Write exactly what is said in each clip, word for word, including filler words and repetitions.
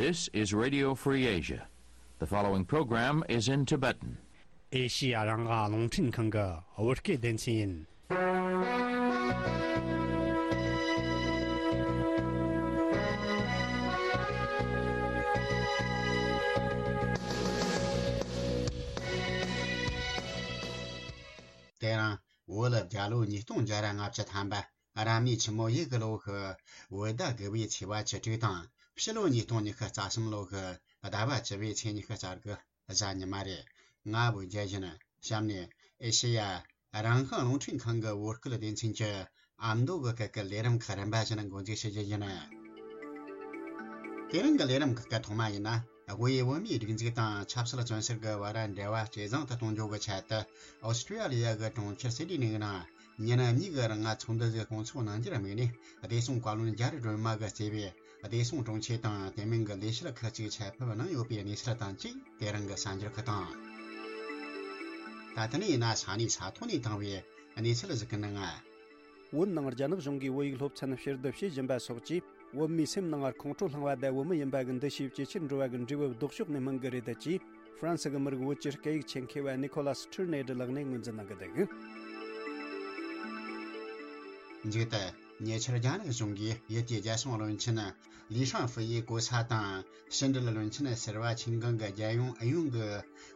This is Radio Free Asia. The following program is in Tibetan. ཨེ་ཤི་ཡ་རང་དབང་རླུང་འཕྲིན་ཁང་གི་བོད་སྐད་སྡེ་ཚན་ཡིན། དེ་རིང་བོད་རྒྱལ་ལོ་ཉིས་སྟོང་བརྒྱ་ར་ལྔ་བཅུ་ཐམ་པ། རབ་གནས་ཆུ་མོ་ཡོས་གི་ལོ་གི་བོད་ཟླ་དགུ་པའི་ཚེས་པ་བཅུ་དྲུག་དང་། ཕྱི་ལོ་ཉིས་སྟོང་ཉི་ཤུ་རྩ་གསུམ་ལོ་གི་ཟླ་བ་བཅུ་པའི་ཚེས་ཉི་ཤུ་རྩ་དགུ་གཟའ་ཉི་མ་རེད། ང་བོད་རྒྱལ་ཡིན། གཤམ་ནས་ཨེ་ཤེ་ཡ་རང་དབང་རླུང་འཕྲིན་ཁང་གི་བོད་སྐད་སྡེ་ཚན་གྱི་ཨ་མདོ་གི་སྐད་ཀྱི་ལས་རིམ་ཁག་རིམ་པ་བཞིན་འགོ་འཛུགས་བྱེད་རྒྱུ་ཡིན། དེ་རིང་གི་ལས་རིམ་ཁག་གི་ཐོག་མ་ཡིན་ན། དབུས་བོད་མིའི་སྒྲིག་འཛུགས་དང་ཆབ་སྲིད་བཙོན་ཟུར་གྱི་བར་འབྲེལ་བ་ཇེ་བཟང་དུ་གཏོང་རྒྱུ་གི་ཆེད་དུ། ཨོ་སི་ཀྲི་ཡ་ལི་ཡ་གི་གྲོང་ཁྱེར་སིད་ནི་གི་ནང་ཉིན་གཉིས་ཀྱི་རིང་ཚོགས་འདུ་ཞིག་སྐོང་ཚོགས་གནང་རྒྱུར་དམིགས་ནས། བདེ་སྲུང་བཀའ་བློན་རྒྱ་རི་སྒྲོལ་མ་གིས་གཙོས་པའི་བདེ་སྲུང་དྲུང་ཆེ་དང་། དེ་མིན་གྱི་ལས་བྱེད་ཁག་ཅིག་ཆེད་ཕེབས་གནང་ཡོད་པའི་གནས་ཚུལ་དང་བཅས། དེ་རིང་གི་གསར་འགྱུར་ཁག་དང་། ད་ལྟ་ནས་ཡིན་ན་ས་གནས་ས་ཐོག་ནས་བཏང་བའི་གནས་ཚུལ་ཞིག་གི་ནང་། བོད་ནང་རྒྱ་ནག་གཞུང་གིས་བོད་ཡིག་སློབ་ཚན་ཕྱིར་བསྡུ་བྱེད་བཞིན་པ་སོགས་ཀྱིས། བོད་མིའི་སེམས་ནང་ཁོང་ཁྲོ་ལངས་པ་དང་། བོད་མི་ཡིན་པ་གི་འདུ་ཤེས་ཇེ་ཆེར་འགྲོ་བ་གི་འབྲས་བུ་ལྡོག་ཕྱོགས་ནས་སྨིན་གི་རེད་ཅེས། ཧྥ་རན་སི་གི་མི་རིགས་བོད་ཀྱི་སྐད་ཡིག་ཆེད་མཁས་པ་ནི་ཁོ་ལ་སི་ཁྲིར་ནེ་ཏི་ལགས་ནས་ངོས་འཛིན་གནང་གི་འདུག། མཇུག་ཏུ། ཉེ་ཆར་རྒྱ་ནག་གཞུང་གིས་ཡུལ་དེའི་རྒྱལ་སྲུང་བློན་ཆེན་ལི་ཧྲང་ཧྥུ་ཡི་གོ་ས་དང་། ཕྱི་འབྲེལ་བློན་ཆེན་ཟུར་པ་ཆིན་ཀང་གི་རྒྱལ་ཡོངས་ཨུ་ཡོན་གྱི་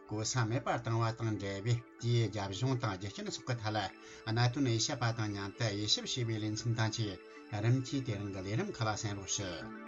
གོ་ས་མེད་པར་བཏང་བ་དང་འབྲེལ་བའི། དེའི་རྒྱབ་གཞུང་དང་རྒྱུ་རྐྱེན་སོགས་ཀྱི་ཐད་ལ། གནད་དོན་དབྱེ་ཞིབ་པ་དང་མཉམ་དུ་དབྱེ་ཞིབ་བྱས་པའི་ལེ་ཚན་དང་བཅས། རིམ་གྱིས་དེ་རིང་གི་ལས་རིམ་ཁག་ལ་གསན་རོགས་ཞུ།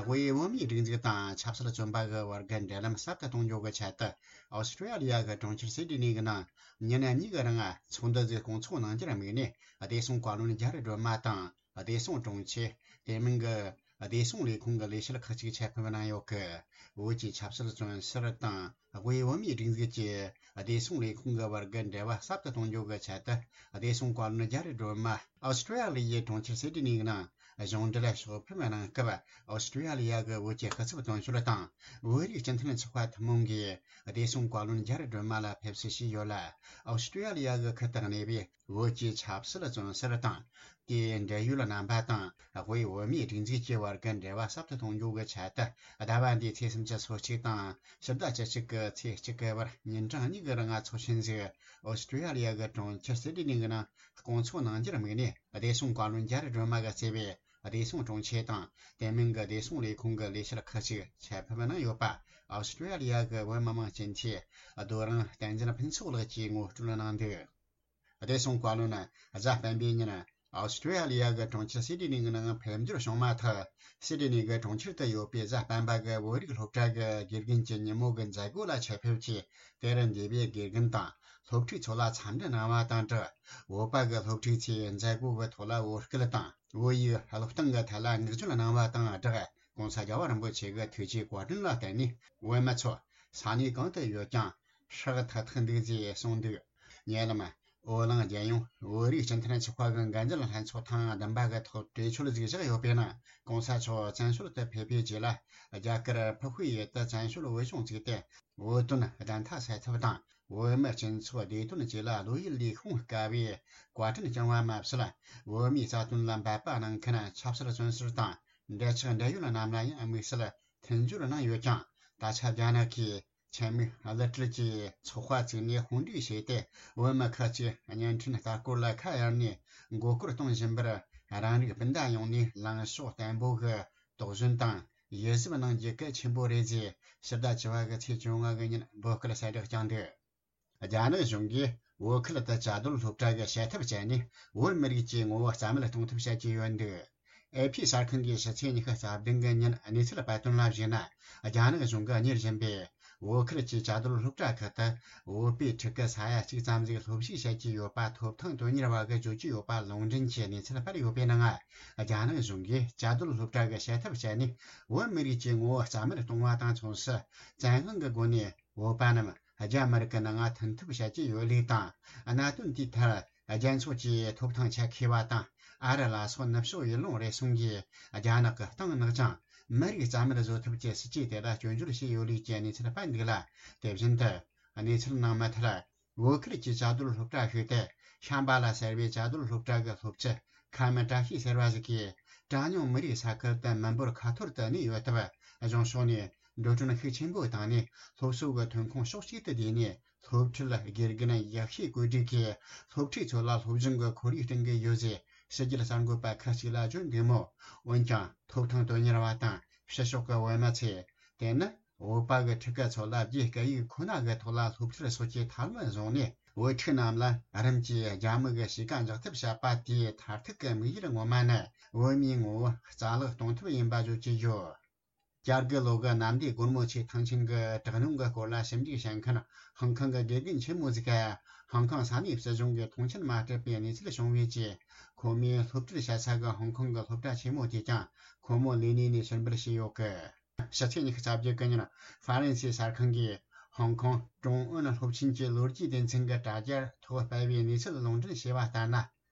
དབུས་བོད་མིའི་སྒྲིག་འཛུགས་དང་ཆབ་སྲིད་བཙོན་པ་གི་བར་གྱི་འབྲེལ་ལམ་ཟབ་ཏུ་གཏོང་རྒྱུ་གི་ཆེད་དུ། ཨོ་སི་ཀྲི་ཡ་ལི་ཡ་གི་གྲོང་ཁྱེར་སིད་ནི་གི་ནང་ཉིན་གཉིས་ཀྱི་རིང་ཚོགས་འདུ་ཞིག་སྐོང་ཚོགས་གནང་རྒྱུར་དམིགས་ནས། བདེ་སྲུང་བཀའ་བློན་རྒྱ་རི་སྒྲོལ་མ་དང་། བདེ་སྲུང་དྲུང་ཆེ། དེ་མིན་གྱི་བདེ་སྲུང་ལས་ཁུངས་ཀྱི་ལས་བྱེད་ཁག་ཅིག་ཆེད་ཕེབས་གནང་ཡོད་གི། བོད་ཀྱི་ཆབ་སྲིད་བཙོན་ཟུར་དང་། དབུས་བོད་མིའི་སྒྲིག་འཛུགས་ཀྱི་བདེ་སྲུང་ལས་ཁུངས་ཀྱི་བར་གྱི་འབྲེལ་བ་ཟབ་ཏུ་གཏོང་རྒྱུ་གི་ཆེད་དུ། བདེ་སྲུང་བཀའ་བློན་རྒྱ་རི་སྒྲོལ་མ་ཨོ་སི་ཀྲི་ཡ་ལི་ཡའི་གྲོང་ཁྱེར་སིད་ནི་གི་ནང་གཞུང་འབྲེལ་ཕྱོགས་ཕེབས་གནང་སྐབས། ཨོ་སི་ཀྲི་ཡ་ལི་ཡ་གི་བོད་ཀྱི་སྐུ་ཚབ་དོན་གཅོད་དང་། བོད་རིགས་སྤྱི་མཐུན་ཚོགས་པ་ཐུན་མོང་གིས་བདེ་སྲུང་བཀའ་བློན་རྒྱ་རི་སྒྲོལ་མ་ལ་ཕེབས་བསུ་ཞུས་ཡོད་ལ། ཨོ་སི་ཀྲི་ཡ་ལི་ཡ་གི་ཁུལ་དུ་གནས་པའི་བོད་ཀྱི་ཆབ་སྲིད་བཙོན་ཟུར་དང་། དེའི་འབྲེལ་ཡོད་རྣམ་པ་དང་། དབུས་བོད་མིའི་སྒྲིག་འཛུགས་ཀྱི་བར་གྱི་འབྲེལ་བ་ཟབ་ཏུ་གཏོང་རྒྱུ་གི་ཆེད་དུ། ཟླ་བ་འདིའི་ཚེས་སུམ་ཅུ་སོ་གཅིག་དང་ཕྱི་ཟླ་བཅུ་གཅིག་གི་ཚེས་གཅིག་གི་བར་ཉིན་གྲངས་གཉིས་ཀྱི་རིང་ཚོགས་ཆེན་ཞིག་ཨོ་སི་ཀྲི་ཡ་ལི་ཡ་གི་གྲོང་ཁྱེར་སིད་ནི་གི་ནང་སྐོང་ཚོགས་གནང་རྒྱུར་དམིགས་ནས། བདེ་སྲུང་བཀའ་བློན་རྒྱ་རི་སྒྲོལ་མ་གིས་གཙོས་པའི་བདེ་སྲུང་དྲུང་ཆེ་དང་། དེ་མིན་གྱི་བདེ་སྲུང་ལས་ཁུངས་ཀྱི་ལས་བྱེད་ཁག་ཅིག་ཆེད་ཕེབས་གནང་ཡོད་པ། ཨོ་སི་ཀྲི་ཡ་ལི་ཡ་གི་བོད་མི་མང་སྤྱི་འཐུས་རྡོ་རིང་བསྟན་འཛིན་ཕུན་ཚོགས་ལགས་ཀྱིས་ངོ་སྤྲོད་གནང་འདུག། བདེ་སྲུང་བཀའ་བློན་གཟའ་སྤེན་པའི་ཉིན་ཨོ་སི་ཀྲི་ཡ་ལི་ཡ་གི་གྲོང་ཁྱེར་སིད་ནི་གི་ནང་ཕེབས་འབྱོར་བྱུང་མ་ཐག། སིད་ནི་གི་གྲོང་ཁྱེར་དུ་ཡོད་པའི་གཟའ་སྤེན་པ་གི་བོད་རིགས་སློབ་གྲྭ་གི་དགེ་རྒན་གྱི་ཉིན་མོ་གི་མཛད་སྒོ་ལ་ཆེད་ཕེབས་ཀྱིས། དེར་འདུས་པའི་དགེ་རྒན་དང་སློབ་ཕྲུག་ཚོ་ལ་འཚམས་འདྲི་གནང་བ་དང་སྦྲགས། བོད་པ་གི་སློབ་ཕྲུག་ཚོས་མཛད་སྒོ་གི་ཐོག་ལ་བོད་སྐད་དང་བོད་ཡིག་སློབ་སྟོན་གྱི་ཐད་ལ་བསྔགས་བརྗོད་གནང་བ་དང་སྦྲགས། ྋགོང་ས་རྒྱལ་བ་རིན་པོ་ཆེ་གི་ཐུགས་རྗེའི་བཀའ་དྲིན་ལ་བརྟེན་ནས། བོད་མི་ཚོ་ས་གནས་གང་དུ་ཡོད་ཀྱང་ཧྲག་ཐག་ཐག་འདུག་ཅེས་གསུངས་འདུག། ཉེ་ལམ་བོད་ལུང་རྒྱལ་ཡོངས་བོད་རིགས་སྤྱི་མཐུན་ཚོགས་པ་གི་འགན་འཛིན་ལྷན་ཚོགས་ཐེངས་བདུན་པ་གི་ཐོག་གྲོས་ཆོད་ཅིག་བཞག་ཡོད་པའི་ནང་། ྋགོང་ས་མཆོག་བཙན་བྱོལ་དུ་ཕེབས་པའི་རྗེས་ལ། རྒྱ་གར་ཕུ་ཧུའེ་ཡུལ་དུ་བཙན་བྱོལ་བོད་གཞུང་བཙུགས་ཏེ། བོད་དོན་བདེན་མཐའ་གསལ་ཐབས་དང་། བོད་མི་སྤྱི་ཚོགས་བདེ་དོན་བཅས་ལ་བློ་ཡུལ་ལས་ཤོང་དཀའ་བའི་བཀའ་དྲིན་བསྐྱངས་པ་མ་ཟད། བོད་མིའི་རྩ་དོན་ལ་འབད་པ་གནང་མཁན་ཆབ་སྲིད་བཙོན་ཟུར་དང་འབྲེལ་ཆགས་འབྲེལ་ཡོད་རྣམས་ལ་ཡང་དམིགས་བསལ་མཐུན་སྦྱོར་གནང་ཡོད་ཀྱང་། ད་ཆ་རྒྱ་ནག་གིས་ཆེད་དམིགས་གློད་གྲལ་གྱི་ཚོགས་པ་བཙུགས་ནས་དཔུང་སྒྲིག་བྱས་ཏེ། བོད་མི་ཁག་ཅིག་བརྙན་འཕྲིན་ལྟ་སྐོར་ལ་ཁ་གཡར་ནས་མགོ་སྐོར་གཏོང་བཞིན་པར། རང་རིགས་སྤུན་ཟླ་ཡོངས་ནས་ལངས་ཕྱོགས་བརྟན་པོ་གི་དོགས་ཟོན་དང་། ཡིད་གཟབ་གནང་རྒྱུ་གལ་ཆེན་པོ་རེད་ཅེས་ཕྱི་ཟླ་བཅུ་པ་གི་ཚེས་བཅོ་ལྔ་གི་ཉིན་འབོད་སྐུལ་གསལ་བསྒྲགས་བསྐྱངས་འདུག། རྒྱ་ནག་གཞུང་གིས་བོད་ཁུལ་དུ་བཅའ་སྡོད་སློབ་གྲྭ་གི་བྱ་ཐབས་སྤྱད་ནས་བོད་མི་རིགས་ཀྱི་ངོ་བོ་རྩ་མེད་གཏོང་ཐབས་བྱེད་ཀྱི་ཡོད་འདུག། ཨེ་ཕི་གསར་ཁང་གིས་ཕྱི་ཚེས་ཉི་ཤུ་རྩ་བདུན་གི་ཉིན་གནས་ཚུལ་སྤེལ་དོན་ལ་གཞིགས་ན། རྒྱ་ནག་གཞུང་གིས་གཉེར་བཞིན་པའི་བོད་ཁུལ་གྱི་བཅའ་སྡོད་སློབ་གྲྭ་ཁག་ཏུ་བོད་པའི་ཕྲུ་གུ་ས་ཡ་གཅིག་ཙམ་ཞིག་སློབ་ཞུགས་བྱེད་ཀྱི་ཡོད་པ་ཐོབ་ཐང་དོན་གཉེར་བ་གིས་བརྗོད་ཀྱི་ཡོད་པ་ལུང་འདྲེན་གྱིས་གནས་ཚུལ་སྤེལ་ཡོད་པའི་ནང་། རྒྱ་ནག་གཞུང་གིས་བཅའ་སྡོད་སློབ་གྲྭ་གི་བྱ་ཐབས་སྤྱད་ནས་བོད་མི་རིགས་ཀྱི་ངོ་བོ་རྩ་མེད་གཏོང་བ་དང་མཚུངས་སུ། བཙན་དབང་གི་སྒོ་ནས་བོད་པ་རྣམས་རྒྱ་མི་རིགས་ཀྱི་ནང་མཐུན་ཐབས་བྱེད་ཀྱི་ཡོད་ལུགས་དང་། གནད་དོན་དེའི་ཐད་རྒྱལ་ཚོགས་ཀྱི་ཐོབ་ཐང་ཆེད་མཁས་པ་དང་། ཨ་རི་ལ་སོགས་ནུབ་ཕྱོགས་ཡུལ་ལུང་རེ་ཟུང་གིས་རྒྱ་ནག་གི་སྟེང་ནག་ཅིང་མི་རིགས་རྩ་མེད་བཟོ་ཐབས་ཀྱི་སྲིད་ཇུས་དེ་ལ་སྐྱོན་བརྗོད་བྱས་ཡོད་ལུགས་ཀྱི་གནས་ཚུལ་སྤེལ་འདུག་ལ། དེ་བཞིན་དུ་གནས་ཚུལ་ནང་མུ་མཐུད། བོད་ཁུལ་གྱི་བཅའ་སྡོད་སློབ་གྲྭ་ཞིག་སྟེ། ཤམ་བྷ་ལ་ཟེར་བའི་བཅའ་སྡོད་སློབ་གྲྭ་གི་སློབ་སྤྱི་ཁ་མི་བཀྲ་ཤིས་ཟེར་བ་ཞིག་གིས། གྲངས་ཉུང་མི་རིགས་ས་ཁུལ་དུ་མི་འབོར་ཁ་ཐོར་དུ་གནས་ཡོད་སྟབས། གཞུང་ཕྱོགས་ནས་འགྲོ་གྲོན་ཤུགས་ཆེན་པོ་བཏང་ནས། སློབ་གསོ་གི་ཐོན་ཁུངས་ཕྱོགས་གཅིག་ཏུ་བསྡུས་ནས། སློབ་ཁྲིད་དགེ་རྒན་ཡག་ཤོས་བཀོད་སྒྲིག་གིས། སློབ་ཕྲུག་ཚོ་ལ་སློབ་སྦྱོང་གི་ཁོར་ཡུག་བསྐྲུན་གྱི་ཡོད་ཅེས་ཕྱི་རྒྱལ་གསར་འགོད་པ་ཁག་ཅིག་ལ་བརྗོད་འདུག་མོད། འོན་ཀྱང་ཐོབ་ཐང་དོན་གཉེར་བ་དང་ཕྱི་ཕྱོགས་ཀྱི་བོད་མི་ཚོས། དེ་ནི་བོད་པ་གི་ཕྲུ་གུ་ཚོ་ལ་རྒྱའི་སྐད་ཡིག་ཁོ་ན་གི་ཐོག་ལ་སློབ་ཁྲིད་སོགས་ཀྱི་ཐབས་ལམ་བཟུང་ནས། བོད་ཕྲུག་རྣམས་ལ་རིམ་གྱིས་རྒྱ་མི་གི་གཤིས་ཀ་འཇགས་ཐབས་བྱས་པ་དེའི་མཐར་ཐུག་གི་དམིགས་ཡུལ་ངོ་མ་ནི། བོད་མིའི་ངོ་བོ་རྩ་བརླག་གཏོང་ཐབས་ཡིན་པ་བརྗོད་ཀྱི་ཡོད། བཅོ་བརྒྱད་ལོ་གི་གནམ་བདེ་སྒོ་མོ་ཆེའི་ཐང་ཆེན་གྱི་དྲག་གནོན་གྱི་སྐོར་ལ་ཞིབ་འཇུག་བྱེད་མཁན་ཧང་ཀོང་གི་དགེ་རྒན་ཆེན་མོ་ཟིག་གིས། ཧང་ཀོང་ས་གནས་སྲིད་གཞུང་གིས་མཐོང་ཆེན་མ་སྤྲད་པའི་གནས་ཚུལ་བྱུང་བའི་རྗེས། ཁོ་མོས་སློབ་ཁྲིད་བྱེད་ས་གི་ཧང་ཀོང་གི་སློབ་གྲྭ་ཆེན་མོ་དེས་ཀྱང་ཁོ་མོ་ལས་གནས་ནས་ཕྱིར་འབུད་བྱས་ཡོད་གི། ཕྱི་ཚེས་ཉི་ཤུ་རྩ་བརྒྱད་གི་ཉིན། ཧྥ་རན་སིའི་གསར་ཁང་གིས་ཧོང་ཀོང་ཀྲུང་ཨུན་སློབ་ཆེན་གྱི་ལོ་རྒྱུས་སྡེ་ཚན་གྱི་དྲ་རྒྱར་ཐོག་སྤེལ་བའི་གནས་ཚུལ་ལུང་འདྲེན་བྱས་པ་ལྟར་ན།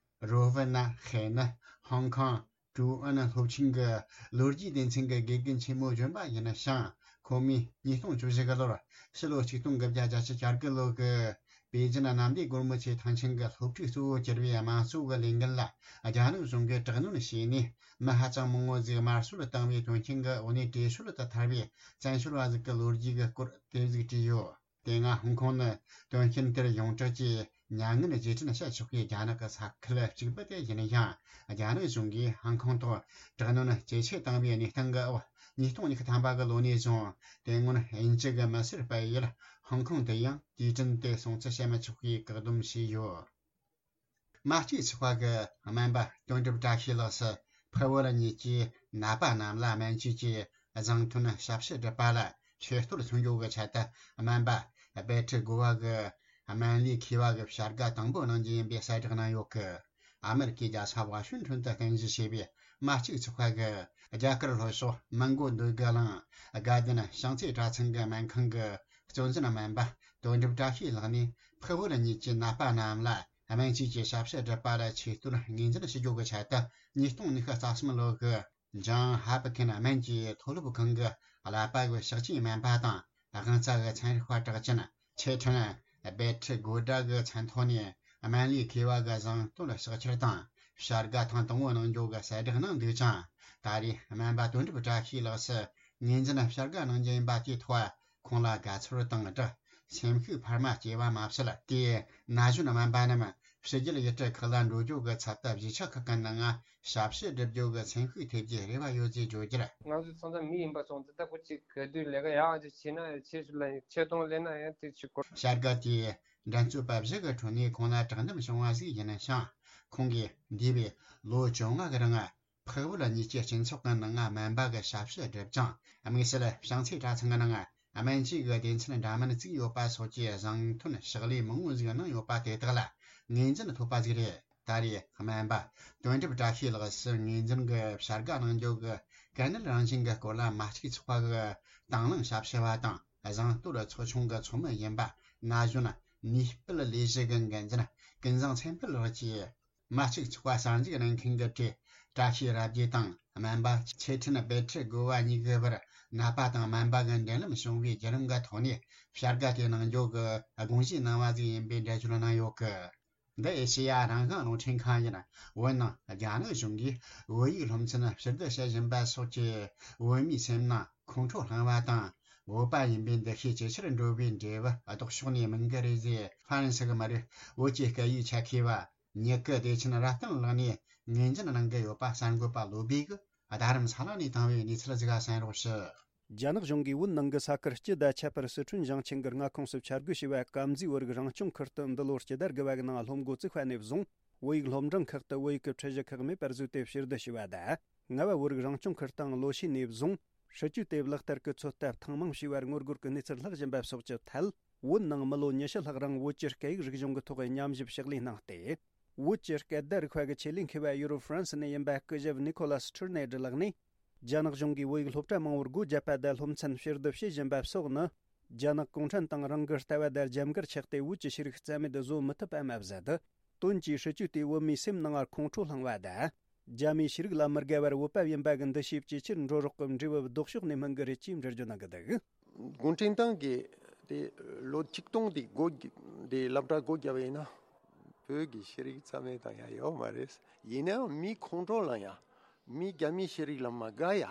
རོ་ཝི་ན་ཧེ་ནི་ཧོང་ཀོང་ཀྲུང་ཨུན་སློབ་ཆེན་གྱི་ལོ་རྒྱུས་སྡེ་ཚན་གྱི་དགེ་རྒན་ཆེན་མོ་གཞོན་པ་ཡིན་ཞིང་། ཁོ་མོས་ཉིས་སྟོང་བཅུ་བཞི་གི་ལོར་ཕྱི་ལོ་ཆིག་སྟོང་དགུ་བརྒྱ་བརྒྱད་ཅུ་གྱ་དགུ་ལོ་གི་པེ་ཅིན་གནམ་བདེ་སྒོ་མོ་ཆེའི་ཐང་ཆེན་གྱི་སློབ་ཕྲུག་གཙོ་བོ་གྱུར་བའི་དམངས་གཙོ་གི་ལས་འགུལ་ལ། རྒྱ་ནག་གཞུང་གིས་དྲག་གནོན་བྱས་ནས། མི་ཧ་ཅང་མང་བོ་ཟིག་དམར་གསོད་བཏང་བའི་དོན་རྐྱེན་གྱི་འོག་ནས་བྲོས་བྱོལ་དུ་ཐར་བའི་བཙན་བྱོལ་བ་ཟིག་གི་ལོ་རྒྱུས་ཀྱི་སྐོར་དེ་ཟིག་བྲིས་ཡོད། དེ་སྔ་ཧོང་ཀོང་ནི་དོན་རྐྱེན་དེར་ཡོངས་གྲགས་ཀྱི་མྱ་ངན་རྗེས་དྲན་བྱེད་ཆོག་པའི་རྒྱ་ནག་གི་ས་ཁུལ་གཅིག་པུ་དེ་ཡིན་ཡང་། རྒྱ་ནག་གཞུང་གིས་ཧོང་ཀོང་ཐོག་དྲག་གནོན་ཇེ་ཆེ་བཏང་བའི་གནས་སྟངས་ཀྱི་འོག་ཉིས་སྟོང་ཉི་ཤུ་ཐམ་པ་གི་ལོ་ནས་བཟུང་། དེ་སྔོན་དབྱིན་ཇི་གི་མི་སེར་སྤེལ་ཡུལ་ཧོང་ཀོང་དུ་ཡང་དུས་དྲན་དེ་སྲུང་བརྩི་བྱེད་མི་ཆོག་པའི་བཀག་སྡོམ་བྱས་ཡོད། མ་གཅིག་ཚོགས་པ་གི་སྨན་པ་དོན་གྲུབ་བཀྲ་ཤིས་ལགས་སུ་འཕགས་བོད་གཉིས་ཀྱི་ནད་པ་རྣམས་ལ་སྨན་བཅོས་ཀྱི་བཟང་ཐོན་ཞབས་ཕྱི་སྒྲུབ་པ་ལ་ཆེ་བསྟོད་མཚོན་རྒྱུ་གི་ཆེད་དུ། སྨན་པ་བེ་ཁྲི་དགོ་བ་གི་སྨན་ལས་མཁས་པ་གི་བྱ་དགའ་དང་པོ་གནང་རྒྱུ་ཡིན་པའི་གསལ་བསྒྲགས་གནང་ཡོད་གི། ཨ་མེ་རི་ཀའི་རྒྱལ་ས་ཝ་ཤིང་ཊོན་དུ་རྟེན་གཞི་བྱས་པའི་མ་གཅིག་ཚོགས་པ་གི་རྒྱ་གར་ལྷོ་ཕྱོགས་མོན་གྷོ་འདོད་རྒུ་གླིང་དགའ་ལྡན་བྱང་རྩེ་གྲྭ་ཚང་གི་སྨན་ཁང་གི་གཙོ་འཛིན་སྨན་པ་དོན་གྲུབ་བཀྲ་ཤིས་ལགས་ནས། འཕགས་བོད་གཉིས་ཀྱི་ནད་པ་རྣམས་ལ་སྨན་བཅོས་ཀྱི་ཞབས་ཕྱི་སྒྲུབ་པ་ལ་ཆེ་བསྟོད་ངོས་འཛིན་ཞུ་རྒྱུ་གི་ཆེད་དུ། ཉིས་སྟོང་ཉི་ཤུ་རྩ་གསུམ་ལོ་གི་ཇོན་ཧོབ་ཀིན་སྨན་གྱི་མཐོ་སློབ་ཁང་གི་ཀླད་པ་གི་ཕྱག་ཆེན་སྨན་པ་དང་། དབང་རྩ་གི་ཚན་རིག་པ་གྲགས་ཅན་ཆེ་ཁྲིན་བེ་ཁྲི་དགོ་ཌ་གི་མཚན་ཐོག་ནས་སྨན་ལས་མཁས་པ་གི་བཟང་བསྟོད་ཕྱག་འཁྱེར་དང་བྱ་དགའ་ཐེངས་དང་པོ་གནང་རྒྱུ་གི་གསལ་བསྒྲགས་གནང་འདུག་ཅིང་། ད་རེས་སྨན་པ་དོན་གྲུབ་བཀྲ་ཤིས་ལགས་སུ་ངོས་འཛིན་ཕྱག་དགའ་གནང་རྒྱུ་ཡིན་པ་དེའི་ཐོག་ཁོང་ལ་དགའ་ཚོར་དང་སྦྲགས། སེམས་ཤུགས་འཕར་མ་སྐྱེས་པ་མ་ཟད། དེའི་ན་གཞོན་སྨན་པ་རྣམས་ཕྱི་རྒྱལ་ཡུལ་གྲུ་ཁག་ལ་འགྲོ་རྒྱུ་གི་ཚབ་ཏུ་གཞིས་ཆགས་ཁག་གི་ནང་ཞབས་ཕྱི་སྒྲུབ་རྒྱུ་གི་སེམས་ཤུགས་ཐེབས་རྒྱུའི་རེ་བ་ཡོད་ཅེས་བརྗོད་རྒྱུར། ང་ཚོ་ཚང་མ་མི་ཡིན་པ་སོང་ཙང་ད་ཁོ་གཅིག་ག་དུས་ལས་ཀ་ཡག་ཅིག་བྱས་ན་ཡང་ཆེ་ཤོས་ལ་ཡང་ཆེ་མཐོང་ལེན་ན་ཡང་དེ་ཅིག་གོ། བྱ་དགའ་དེའི་འགྲན་རྩོད་པ་བཞི་གི་ཁྲོད་ནས་ཁོང་ལ་དྲང་བདེན་བྱུང་བ་ཞིག་ཡིན་ཞིང་། ཁོང་གིས་འདས་པའི་ལོ་བཅོ་ལྔ་གི་རིང་འཕགས་བོད་གཉིས་ཀྱི་སྤྱི་ཚོགས་ཀྱི་ནང་སྨན་པ་གི་ཞབས་ཕྱི་བསྒྲུབས་ཅིང་། དམིགས་བསལ་བྱང་རྩེ་གྲྭ་ཚང་གི་ནང་སྨན་བཅོས་ཀྱི་སྡེ་ཚན་འདྲ་མིན་བཙུགས་ཡོད་པ་སོགས་ཀྱི་བཟང་ཐོན་ཕྱག་ལས་མང་བོ་ཞིག་གནང་ཡོད་པ་དེ་དག་ལ་ངོས་འཛིན་ཐོབ་པ་ཞིག་རེད། ད་རེས་སྨན་པ་དོན་གྲུབ་བཀྲ་ཤིས་ལགས་སུ་ངོས་འཛིན་གྱི་བྱ་དགའ་གནང་རྒྱུ་གི་དཀའ་ངལ་རང་བཞིན་གྱི་སྐོར་ལ་མ་གཅིག་ཚོགས་པ་གི་དང་བླངས་ཞབས་ཞུ་བ་དང་བཟང་བསྟོད་ཚོགས་ཆུང་གི་ཚོགས་མི་ཡིན་པ་ན་གཞོན་ནུས་སྤེལ་ལས་གཞི་གི་འགན་འཛིན་ཀུན་བཟང་མཚན་ཕུད་ལགས་ཀྱིས། མ་གཅིག་ཚོགས་པ་གསར་འཛུགས་གནང་མཁན་གྱི་གྲས་བཀྲ་ཤིས་རབ་རྒྱས་དང་སྨན་པ་ཆེ་ཁྲིན་བེ་ཁྲི་དགོ་བ་གཉིས་ཀྱི་བར་ནད་པ་དང་སྨན་པ་གི་འབྲེལ་ལམ་བྱུང་བའི་བརྒྱུད་རིམ་གྱི་ཐོག་ནས་བྱ་དགའ་དེ་གནང་རྒྱུ་གི་དགོངས་བཞེས་གནང་བ་ཞིག་ཡིན་པའི་འགྲེལ་བརྗོད་གནང་ཡོད་གི། འདི་ཨེ་ཤེ་ཡ་རང་དབང་རླུང་འཕྲིན་ཁང་ཡིན། བོད་ནང་རྒྱ་ནག་གཞུང་གིས་བོད་ཡིག་སློབ་ཚན་ཕྱིར་བསྡུ་བྱེད་བཞིན་པ་སོགས་ཀྱིས་བོད་མིའི་སེམས་ནང་ཁོང་ཁྲོ་བསླངས་པ་དང་། བོད་པ་ཡིན་པའི་འདུ་ཤེས་ཇེ་ཆེར་འགྲོ་བའི་འབྲས་བུ་ལྡོག་ཕྱོགས་ནས་མིན་གྱི་རེད་ཅེས་ཧྥ་རན་སི་གི་མི་རིགས་བོད་ཀྱི་སྐད་ཡིག་ཆེད་མཁས་པ་ཉི་ཀི་བདེ་ཆེན་རབ་བརྟན་ལགས་ནས་ངོས་འཛིན་གནང་གི་ཡོད་པ་གསར་འགོད་པ་བློ་བྷེ་གིས་རྡ་རམ་ས་ལ་ནས་བཏང་བའི་གནས་ཚུལ་ཞིག་གསན་རོགས་ཞུ། རྒྱ་ནག་གཞུང་གིས་བོད་ནང་གི་ས་ཁུལ་སྤྱི་དང་ཁྱད་པར་སི་ཁྲོན་ཞིང་ཆེན་གྱི་མངའ་ཁོངས་སུ་འཆར་འགོད་བྱས་པ་དཀར་མཛེས་བོད་རིགས་རང་སྐྱོང་ཁུལ་དུ་འདི་ལོར་སྤྱི་ཟླ་དགུ་པ་གི་ནང་སློབ་འགོ་བཙུགས་པ་ནས་བཟུང་བོད་ཡིག་སློབ་འབྲིང་ཁག་ཏུ་བོད་ཡིག་གི་ཁྲིད་གཞི་ཁག་མེད་པར་བཟོས་ཏེ་ཕྱིར་བསྡུ་བྱས་པ་དང་། རྔ་བ་བོད་རིགས་རང་སྐྱོང་ཁུལ་དང་ལོ་ཤས་ནས་བཟུང་སྲིད་ཇུས་དེ་ལག་བསྟར་གྱི་ཚོད་ལྟ་ཐེངས་མང་བྱས་པར་ངོ་རྒོལ་གྱི་གནས་ཚུལ་ལྷག་བཞིན་པ་སོགས་ཀྱི་ཐད། བོད་ནང་མི་ལོ་ཉི་ཤུ་ལྷག་རིང་བོད་ཀྱི་སྐད་ཡིག་རིག་གཞུང་གི་ཐོག་ཉམས་ཞིབ་ཕྱག་ལས་གནང་སྟེ། བོད་ཀྱི་སྐད་བརྡ་རིག་པ་གི་ཆེད་ལས་མཁས་པ་ཡུ་རོབ་ཧྥ་རན་སི་ནས་ཡིན་པ་སྐུ་ཞབས་ནི་ཁོ་ལ་སི་ཁྲུར་ནེ་ཌི་ལགས་ནས། རྒྱ་ནག་གཞུང་གིས་བོད་ཡིག་སློབ་གྲྭ་མང་བོར་སྒོ་བརྒྱབ་པ་དང་སློབ་ཚན་ཕྱིར་བསྡུ་བྱེད་བཞིན་པ་སོགས་ནི། རྒྱ་ནག་གུང་ཁྲན་ཏང་རང་གི་ལྟ་བ་དང་རྒྱབ་འགལ་ཆགས་ཏེ་བོད་ཀྱི་ཤེས་རིག་རྩ་མེད་བཟོ་མི་ཐུབ་པ་མ་ཟད། དོན་གྱིས་སྲིད་ཇུས་དེས་བོད་མིའི་སེམས་ནང་ཁོང་ཁྲོ་བསླངས་པ་དང་། རྒྱ་མིའི་ཤེས་རིག་ལ་མི་དགའ་བར་བོད་པ་ཡིན་པ་གི་འདུ་ཤེས་ཇེ་ཆེར་འགྲོ་རོགས་ཀྱི་འབྲས་བུ་ལྡོག་ཕྱོགས་ནས་སྨིན་གི་རེད་ཅེས་འགྲེལ་བརྗོད་གནང་གི་འདུག་གུང་ཁྲན་ཏང་གིས་དེ་ལོ་ཆིག་སྟོང་དེ་སྒོ་དེ་སློབ་གྲྭ་སྒོ་བརྒྱབ་པ་ཡིན་ན། བོད་ཀྱི་ཤེས་རིག་རྩ་མེད་དང་ཡང་ཡོད་མ་རེད། ཡིན་ནའང་མི་ཁོང་ཁྲོ་ལངས་ཡ། མི་རྒྱ་མི་ཤེས་རིག་ལ་མ་དགའ་ཡ།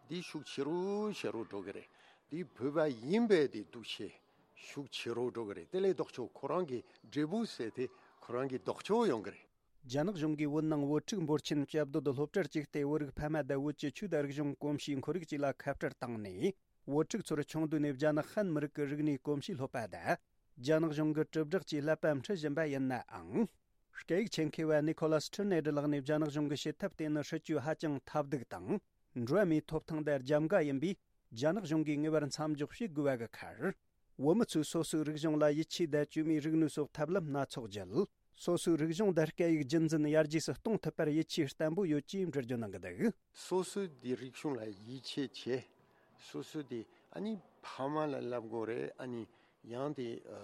འདི་ཤུགས་ཆེ་རུ་ཆེ་རུ་འགྲོ་གི་རེད། འདི་བོད་པ་ཡིན་པའི་དེ་འདུ་ཤེས་ཤུགས་ཆེ་རུ་འགྲོ་གི་རེད། དེ་ལས་ལྡོག་ཕྱོགས་ཁོ་རང་གི་འབྲས་བུ་ཟེར་དེ་ཁོ་རང་གི་ལྡོག་ཕྱོགས་ཡོང་གི་རེད། རྒྱ་ནག་གཞུང་གིས་བོད་ནང་བོད་ཕྲུག་འབོར་ཆེན་བཅའ་སྡོད་སློབ་གྲྭར་བཅུག་སྟེ། བོད་རིགས་ཕ་མ་དང་བོད་ཀྱི་ཆོས་དང་རིག་གཞུང་གོམས་གཤིས་ཁོར་ཡུག་བཅས་ལ་ཁ་བྲལ་བཏང་ནས། བོད་ཕྲུག་ཚོར་ཆུང་དུས་ནས་རྒྱ་ནག་ཧན་མི་རིགས་ཀྱི་རིག་གནས་གོམས་གཤིས་སློབ་པ་དང་། རྒྱ་ནག་གཞུང་གི་དྲིལ་བསྒྲགས་ཀྱི་ཀླད་པ་འཁྲུད་བཞིན་པ་ཡིན་ནའང་། སྐད་ཡིག་ཆེད་མཁས་པ་ནི་ཁོ་ལ་སི་ཁྲི་ནེ་ཌི་ལགས་ནས། རྒྱ་ནག་གཞུང་གི་བྱེད་ཐབས་དེ་ནི་སྲིད་ཇུས་ཧ་ཅང་ཐབས་སྡུག་དང་། འགྲོ་བ་མིའི་ཐོབ་ཐང་དང་རྒྱབ་འགལ་ཡིན་པས། རྒྱ་ནག་གཞུང་གིས་ངེས་པར་མཚམས་འཇོག་བྱེད་དགོས་པ་གི་ཁར། བོད་མི་ཚོས་སོ་སོའི་རིག་གཞུང་ལ་ཡིད་ཆེས་དང་། བཅོས་མའི་རིག་ནུས་སོགས་ཐབས་ལམ་སྣ་ཚོགས་བརྒྱུད། སོ་སོའི་རིག་གཞུང་དང་སྐད་ཡིག་རྒྱུན་འཛིན་ཡར་རྒྱས་སུ་གཏོང་ཐུབ་པར་ཡིད་ཆེས་བརྟན་པོ་ཡོད་ཅེས་འགྲེལ་བརྗོད་གནང་གི་འདུག། སོ་སོའི་དེ་རིག་གཞུང་ལ་ཡིད་ཆེས་བྱེད། སོ་སོའི་དེ་ཨ་ནི་ཕ་མ་ལ་བསླབ་དགོས་རེད། ཨ་ནི་ཡང་དེ་ཨ་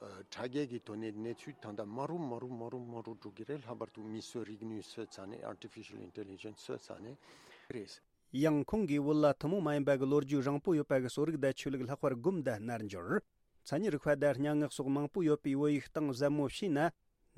ཨ་དྲ་རྒྱའི་གི་ཐོག་ནས་གནས་ཚུལ་ད་ལྟ་མ་རུ་མ་རུ་མ་རུ་མ་རུ་འགྲོ་གི་རེད། ལྷག་པར་དུ་མིའི་རིག་ནུས་བཟོས་ཚར་ནས། artificial intelligence བཟོས་ཚར་ནས་རེད། ཡང་ཁོང་གིས་བོད་ལ་ཐུན་མོང་མ་ཡིན་པ་གི་ལོ་རྒྱུས་རིང་པོ་ཡོད་པ་གི་གསོ་རིག་དང་ཆོས་ལུགས། ལྷག་པར་སྒོམ་དང་རྣལ་འབྱོར། མཚན་ཉིད་རིག་པ་དང་སྙན་ངག་སོགས་མང་པོ་ཡོད་པའི་བོད་ཡིག་སྟེང་གཟབ་མོ་ཕྱེས་ན།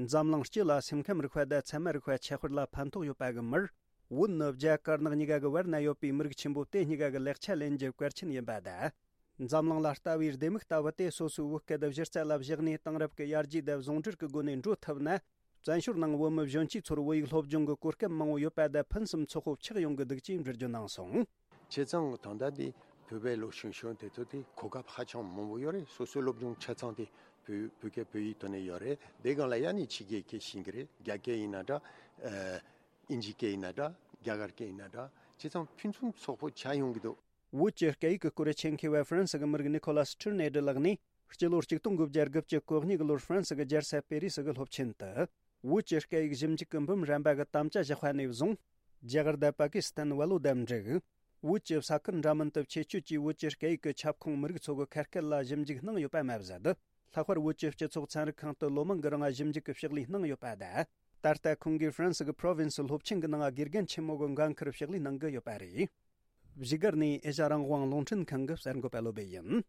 འཛམ་གླིང་སྤྱི་ལ་སེམས་ཁམས་རིག་པ་དང་ཚད་མ་རིག་པ་ཁྱད་པར་ལ་ཕན་ཐོགས་ཡོད་པ་གི་མིར། བོད་ནི་རྒྱ་དཀར་ནག་གཉིས་ཀ་གི་བར་ན་ཡོད་པའི་མི་རིགས་ཆེན་པོ་དེ་གཉིས་ཀ་གི་ལེགས་ཆ་ལེན་རྒྱུ་གལ་ཆེན་ཡིན་པ་དང་། འཛམ་གླིང་ལ་ལྟ་བའི་ལྡེ་མིག་ལྟ་བུ་དེ་སོ་སོའི་བོད་སྐད་གཞི་རྩ་ལ་བཞག་ནས། དེང་རབས་ཀྱི་ཡར་རྒྱས་དང་ཟུང་འབྲེལ་གྱི་སྒོ་ནས་འགྲོ་ཐུབ་ན། བཙན་བྱོལ་ནང་བོད་མི་གཞོན་སྐྱེས་ཚོར་བོད་ཡིག་སློབ་སྦྱོང་གི་གོ་སྐབས་མང་བོ་ཡོད་པ་དང་། ཕུན་སུམ་ཚོགས་པོ་ཆགས་ཡོང་གི་འདུག་ཅེས་འགྲེལ་བརྗོད་གནང་སོང་། བྱས་ཙང་ད་ལྟ་འདི་བོད་པའི་ལོ་གཞོན་གཞོན་དེ་ཚོ་དེ་གོ་སྐབས་ཧ་ཅང་མང་པོ་ཡོད་རེད། སོ་སོའི་སློབ་སྦྱོང་ཆ་ཚང་དེ་བོད་བོད་སྐད་བོད་ཡིག་ཐོག་ནས་ཡོད་རེད། དེ་སྒང་ལ་ཡ་ནི་ཕྱི་རྒྱལ་སྐད་ཤེས་ཀྱི་རེད། རྒྱ་སྐད་ཡིན་ན་འདྲ། ཨ་དབྱིན་ཇི་སྐད་ཡིན་ན་འདྲ། རྒྱ་གར་སྐད་ཡིན་ན་འདྲ། བྱས་ཙང་ཕུན་སུམ་ཚོགས་པོ་ཆགས་ཡོང་གི་འདུག། བོད་ཀྱི་སྐད་ཡིག་གི་སྐོར་ཆེད་མཁས་པ་ཧྥ་རན་སི་གི་མི་རིགས་ནི་ཁོ་ལ་སི་ཁྲི་ནེ་ཌི་ལགས་ནས། སྤྱི་ལོ་གཅིག་སྟོང་དགུ་བརྒྱ་དགུ་བཅུ་གོ་གཉིས་གི་ལོར་ཧྥ་རན་སི་གི་རྒྱལ་ས་པེ་རི་སི་གི་སློབ་ཆེན་དུ། བོད་ཀྱི་སྐད་ཡིག་ཞིབ་འཇུག་གི་འབུམ་རམས་པ་གི་དམ་བཅའ་བཞག་པ་ནས་བཟུང་། རྒྱ་གར་དང་པ་ཀི་སི་ཐན། ཝལ་ལོ་དང་འབྲུག། བོད་ཀྱི་ས་ཁུལ་འདྲ་མིན་དུ་ཆེད་སྐྱོད་ཀྱིས་བོད་ཀྱི་སྐད་ཡིག་གི་ཁྱབ་ཁོངས་མི་རིགས་ཚོ་གི་ཁ་སྐད་ལ་ཞིབ་འཇུག་གནང་ཡོད་པ་མ་ཟད། ལྷག་པར་བོད་ཀྱི་སྤྱི་ཚོགས་ཚན་རིག་ཁང་དུ་ལོ་མང་གི་རིང་ཞིབ་འཇུག་གི་ཕྱག་ལས་གནང་ཡོད་པ་དང་། ད་ལྟ་ཁོང་གིས་ཧྥ་རན་སི་གི་པྲོ་ཝིན་སི་སློབ་ཆེན་གྱི་ནང་དགེ་རྒན་ཆེན་མོ་གི་འགན་འཁུར་ཕྱག་ལས་གནང་གི་ཡོད་པ་རེད། བཞུགས་སྒར་ནས་ཨེ་ཤ་རང་དབང་རླུང་འཕྲིན་ཁང་གི་གསར་འགོད་པ་བློ་སྦེ་ཡིན།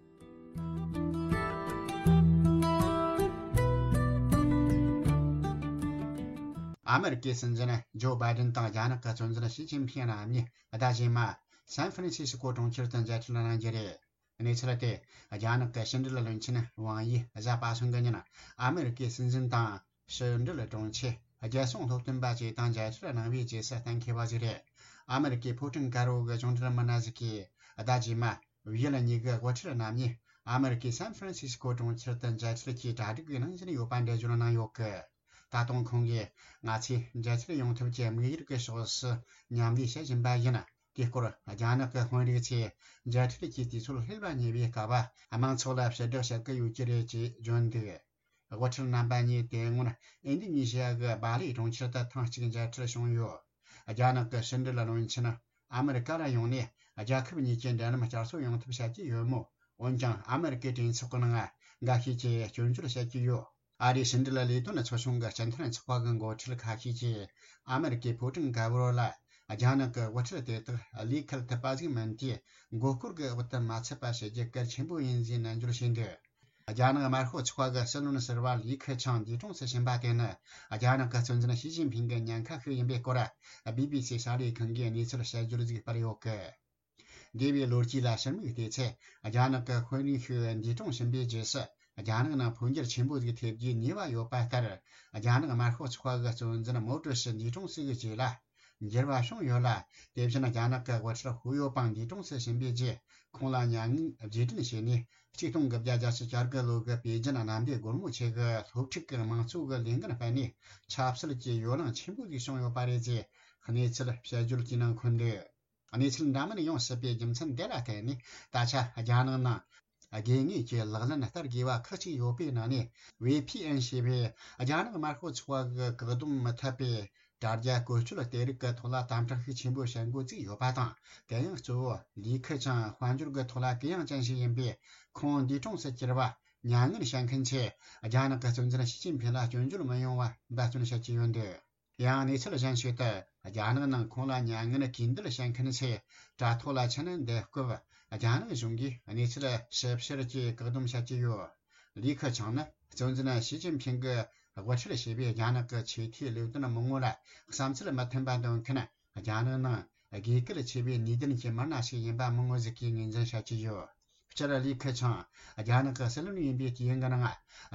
ཨ་མེ་རི་ཀའི་སྲིད་འཛིན་ཇོ་བྷའི་ཌེན་དང་རྒྱ་ནག་གི་གཙོ་འཛིན་ཞི་ཅིན་ཕིང་རྣམ་གཉིས་ཟླ་རྗེས་མ་སན་ཧྥ་རན་སི་སི་ཀོ་གྲོང་ཁྱེར་དུ་མཇལ་འཕྲད་གནང་རྒྱུ་རེད། གནས་ཚུལ་དེ་རྒྱ་ནག་གི་ཕྱི་འབྲེལ་བློན་ཆེན་ཝང་ཡིས་གཟའ་པ་སངས་ཀྱི་ཉིན་ཨ་མེ་རི་ཀའི་སྲིད་འཛིན་དང་ཕྱི་འབྲེལ་དྲུང་ཆེ། རྒྱལ་སྲུང་སློབ་སྟོན་པ་བཅས་དང་མཇལ་འཕྲད་གནང་བའི་རྗེས་སུ་གཏན་འཁེལ་བ་ཞིག་རེད། ཨ་མེ་རི་ཀའི་ཕོ་བྲང་དཀར་པོ་གི་གཞུང་འབྲེལ་མི་སྣ་ཞིག་གིས་ཟླ་རྗེས་མ་ཝི་ཡལ་གཉིས་ཀྱི་དབུ་ཁྲིད་རྣམ་གཉིས་ཨ་མེ་རི་ཀའི་སན་ཧྥ་རན་སི་སི་ཀོ་གྲོང་ཁྱེར་དུ་མཇལ་འཕྲད་ཀྱིས་གྲ་སྒྲིག་གནང་བཞིན་ཡོད་པ་འགྲེལ་བརྗོད་གནང་ཡོད་སྐད། ད་དུང་ཁོང་གིས་ང་ཚོས་མཇལ་འཕྲད་ཡོང་ཐབས་ཀྱི་དམིགས་ཡུལ་གྱི་ཕྱོགས་སུ་མཉམ་ལས་བྱེད་བཞིན་པ་ཡིན། དེའི་སྐོར་རྒྱ་ནག་གི་དཔོན་རིགས་ཚོས་མཇལ་འཕྲད་ཀྱི་དུས་ཚོད་སླེབས་པ་ཉེ་བའི་སྐབས། དམངས་ཚོགས་ལ་ཕྱིར་བསྒྲགས་བྱེད་ཀྱི་ཡོད་ཀྱི་རེད་ཅེས་བརྗོད་འདུག། དབུ་ཁྲིད་རྣམ་པ་གཉིས་དེ་སྔོན་ཨིན་དི་ནི་ཞི་ཡ་གི་སྦ་ལི་གྲོང་ཁྱེར་དུ་ཐེངས་གཅིག་མཇལ་འཕྲད་བྱུང་ཡོད། རྒྱ་ནག་གི་ཕྱི་འབྲེལ་བློན་ཆེན་ཨ་མེ་རི་ཀ་ལ་ཡོང་ནས། རྒྱལ་ཁབ་གཉིས་ཀྱི་འབྲེལ་ལམ་བསྐྱར་གསོ་ཡོང་ཐབས་བྱ་རྒྱུ་ཡོད་མོད། འོན་ཀྱང་ཨ་མེ་རི་ཀའི་གྲོས་ཚོགས་ཀྱི་ནང་འགའ་ཤས་ཀྱིས་སྐྱོན་བརྗོད་བྱེད་ཀྱི་ཡོད། ཨ་རིའི་ཕྱི་འབྲེལ་ལས་དོན་ཚོགས་ཆུང་གི་སྤྱི་མཐུན་ཚོགས་པ་གི་འགོ་ཁྲིད་ཁ་ཤས་ཀྱིས་ཨ་མེ་རི་ཀའི་ཕོ་བྲང་དཀར་པོ་ལ་རྒྱ་ནག་གི་དབུ་ཁྲིད་དེ་དག་ལུས་འཁེལ་ཐུབ་པ་ཞིག་མིན་དུས། མགོ་སྐོར་གྱི་འོག་ཏུ་མ་ཚུད་པ་བྱེད་རྒྱུ་གལ་ཆེན་པོ་ཡིན་ཞེས་ནན་བརྗོད་བྱས་འདུག། རྒྱ་ནག་དམར་ཤོག་ཚོགས་པ་གི་སྲིད་བློན་ཟུར་པ་ལི་ཁེ་ཆང་འདས་གྲོངས་སུ་ཕྱིན་པ་དེ་ནི། རྒྱ་ནག་གི་གཙོ་འཛིན་ཞི་ཅིན་ཕིང་གི་ཉེན་ཁ་ཞིག་ཡིན་པའི་སྐོར། བི་བི་སི་གསར་ལས་ཁང་གིས་གནས་ཚུལ་དཔྱད་བརྗོད་ཅིག་སྤེལ་ཡོད་སྐད། འདས་པའི་ལོ་རྒྱུས་ལ་ཕྱིར་མིག་བལྟས་ཚེ། རྒྱ་ནག་གི་དཔོན་རིགས་ཤིག་འདས་གྲོངས་ཕྱིན་པའི་རྗེས་སུ། རྒྱ་ནག་ནང་འཕོ་འགྱུར་ཆེན་པོ་ཞིག་ཐེབས་རྒྱུའི་ཉེས་པ་ཡོད་པ་ལྟར། རྒྱ་ནག་དམར་ཤོག་ཚོགས་པ་གི་གཙོ་འཛིན་མའོ་ཀྲུའུ་ཞི་འདས་གྲོངས་སུ་གི་རྗེས་ལ། འགྱུར་བ་བྱུང་ཡོད་ལ། དེ་བཞིན་རྒྱ་ནག་གི་དབུ་ཁྲིད་ཧུའུ་ཡོ་པང་འདས་གྲོངས་སུ་ཕྱིན་པའི་རྗེས། ཁོང་ལ་མྱ་ངན་རྗེས་དྲན་བྱས་ནས། གཅིག་སྟོང་དགུ་བརྒྱ་བརྒྱད་ཅུ་གྱ་དགུ་ལོ་གི་པེ་ཅིན་གནམ་བདེ་སྒོ་མོ་ཆེ་གི་སློབ་ཕྲུག་གི་དམངས་གཙོ་གི་ལས་འགན་སྤེལ་ནས། ཆབ་སྲིད་ཀྱི་ཡོ་ལང་ཆེན་པོ་ཞིག་བྱུང་ཡོད་པ་རེད་ཅེས་གནས་ཚུལ་དཔྱད་བརྗོད་ཀྱི་ནང་འཁོད་འདུག། གནས་ཚུལ་འདྲ་མིན་ཡོང་སྲིད་པའི་རྒྱུ་མཚན་དེ་ལ་བརྟེན་ནས། ད་ཆ་རྒྱ་ནག་ནང་དགོས་ངེས་ཀྱི་ལག་ལེན་བསྟར་དགོས་པ་ཁག་ཅིག་ཡོད་པའི་ནང་ནས། ཝེ་ཕི་ཨེན་ཞེས་པའི་རྒྱ་ནག་དམར་ཤོག་ཚོགས་པ་གི་བཀག་སྡོམ་མི་ཐེབས་པའི་དྲ་རྒྱ་བཀོལ་སྤྱོད་དེ་རིགས་ཀྱི་ཐོག་ལ་དམ་དྲག་ཤུགས་ཆེན་པོ་བྱེད་འགོ་བཙུགས་ཡོད་པ་དང་། དེ་ཡང་གཙོ་བོ་ལི་ཁེ་ཆང་དཔལ་འབྱོར་གྱི་ཐོག་ལ་གུ་ཡངས་ཅན་ཞིག་ཡིན་པས། ཁོང་འདས་གྲོངས་སུ་གྱུར་བ་མྱ་ངན་བྱེད་མཁན་ཚོས་རྒྱ་ནག་གི་གཙོ་འཛིན་ཞི་ཅིན་ཕིང་ལ་སྐྱོན་བརྗོད་མི་ཡོང་བ་འབད་བརྩོན་བྱེད་ཀྱི་ཡོད་འདུག། ཡང་གནས་ཚུལ་གཞན་ཞིག་ཏུ། རྒྱ་ནག་ནང་ཁོང་ལ་མྱ་ངན་གུས་འདུད་བྱེད་མཁན་ཚོས་དྲ་ཐོག་ལ་ཕྱིན་ནས་འདེད་སྐབས། རྒྱ་ནག་གཞུང་གིས་གནས་ཚུལ་ཞིབ་བཤེར་གྱིས་བཀག་སྡོམ་བྱེད་ཀྱི་ཡོད། ལི་ཁེ་ཆང་ནི་གཙོ་འཛིན་ཞི་ཅིན་ཕིང་གི་དབུ་ཁྲིད་བྱས་པའི་རྒྱ་ནག་གི་ཆེས་མཐོའི་ལས་དོན་མི་ངོ་ལ་བསམ་ཚུལ་མི་མཐུན་པ་འདོན་མཁན་ རྒྱ་ནག་ནང་དགོས་གལ་ཆེ་བའི་ནུས་ལྡན་གྱི་མི་སྣ་ཞིག་ཡིན་པ་མང་ངོ་ཟིག་གིས་ངོས་འཛིན་བྱ་གི་ཡོད། སྤྱིར་ལི་ཁེ་ཆང་རྒྱ་ནག་གི་སྲིད་བློན་ཡིན་པའི་དུས་ཡུན་གྱི་ནང་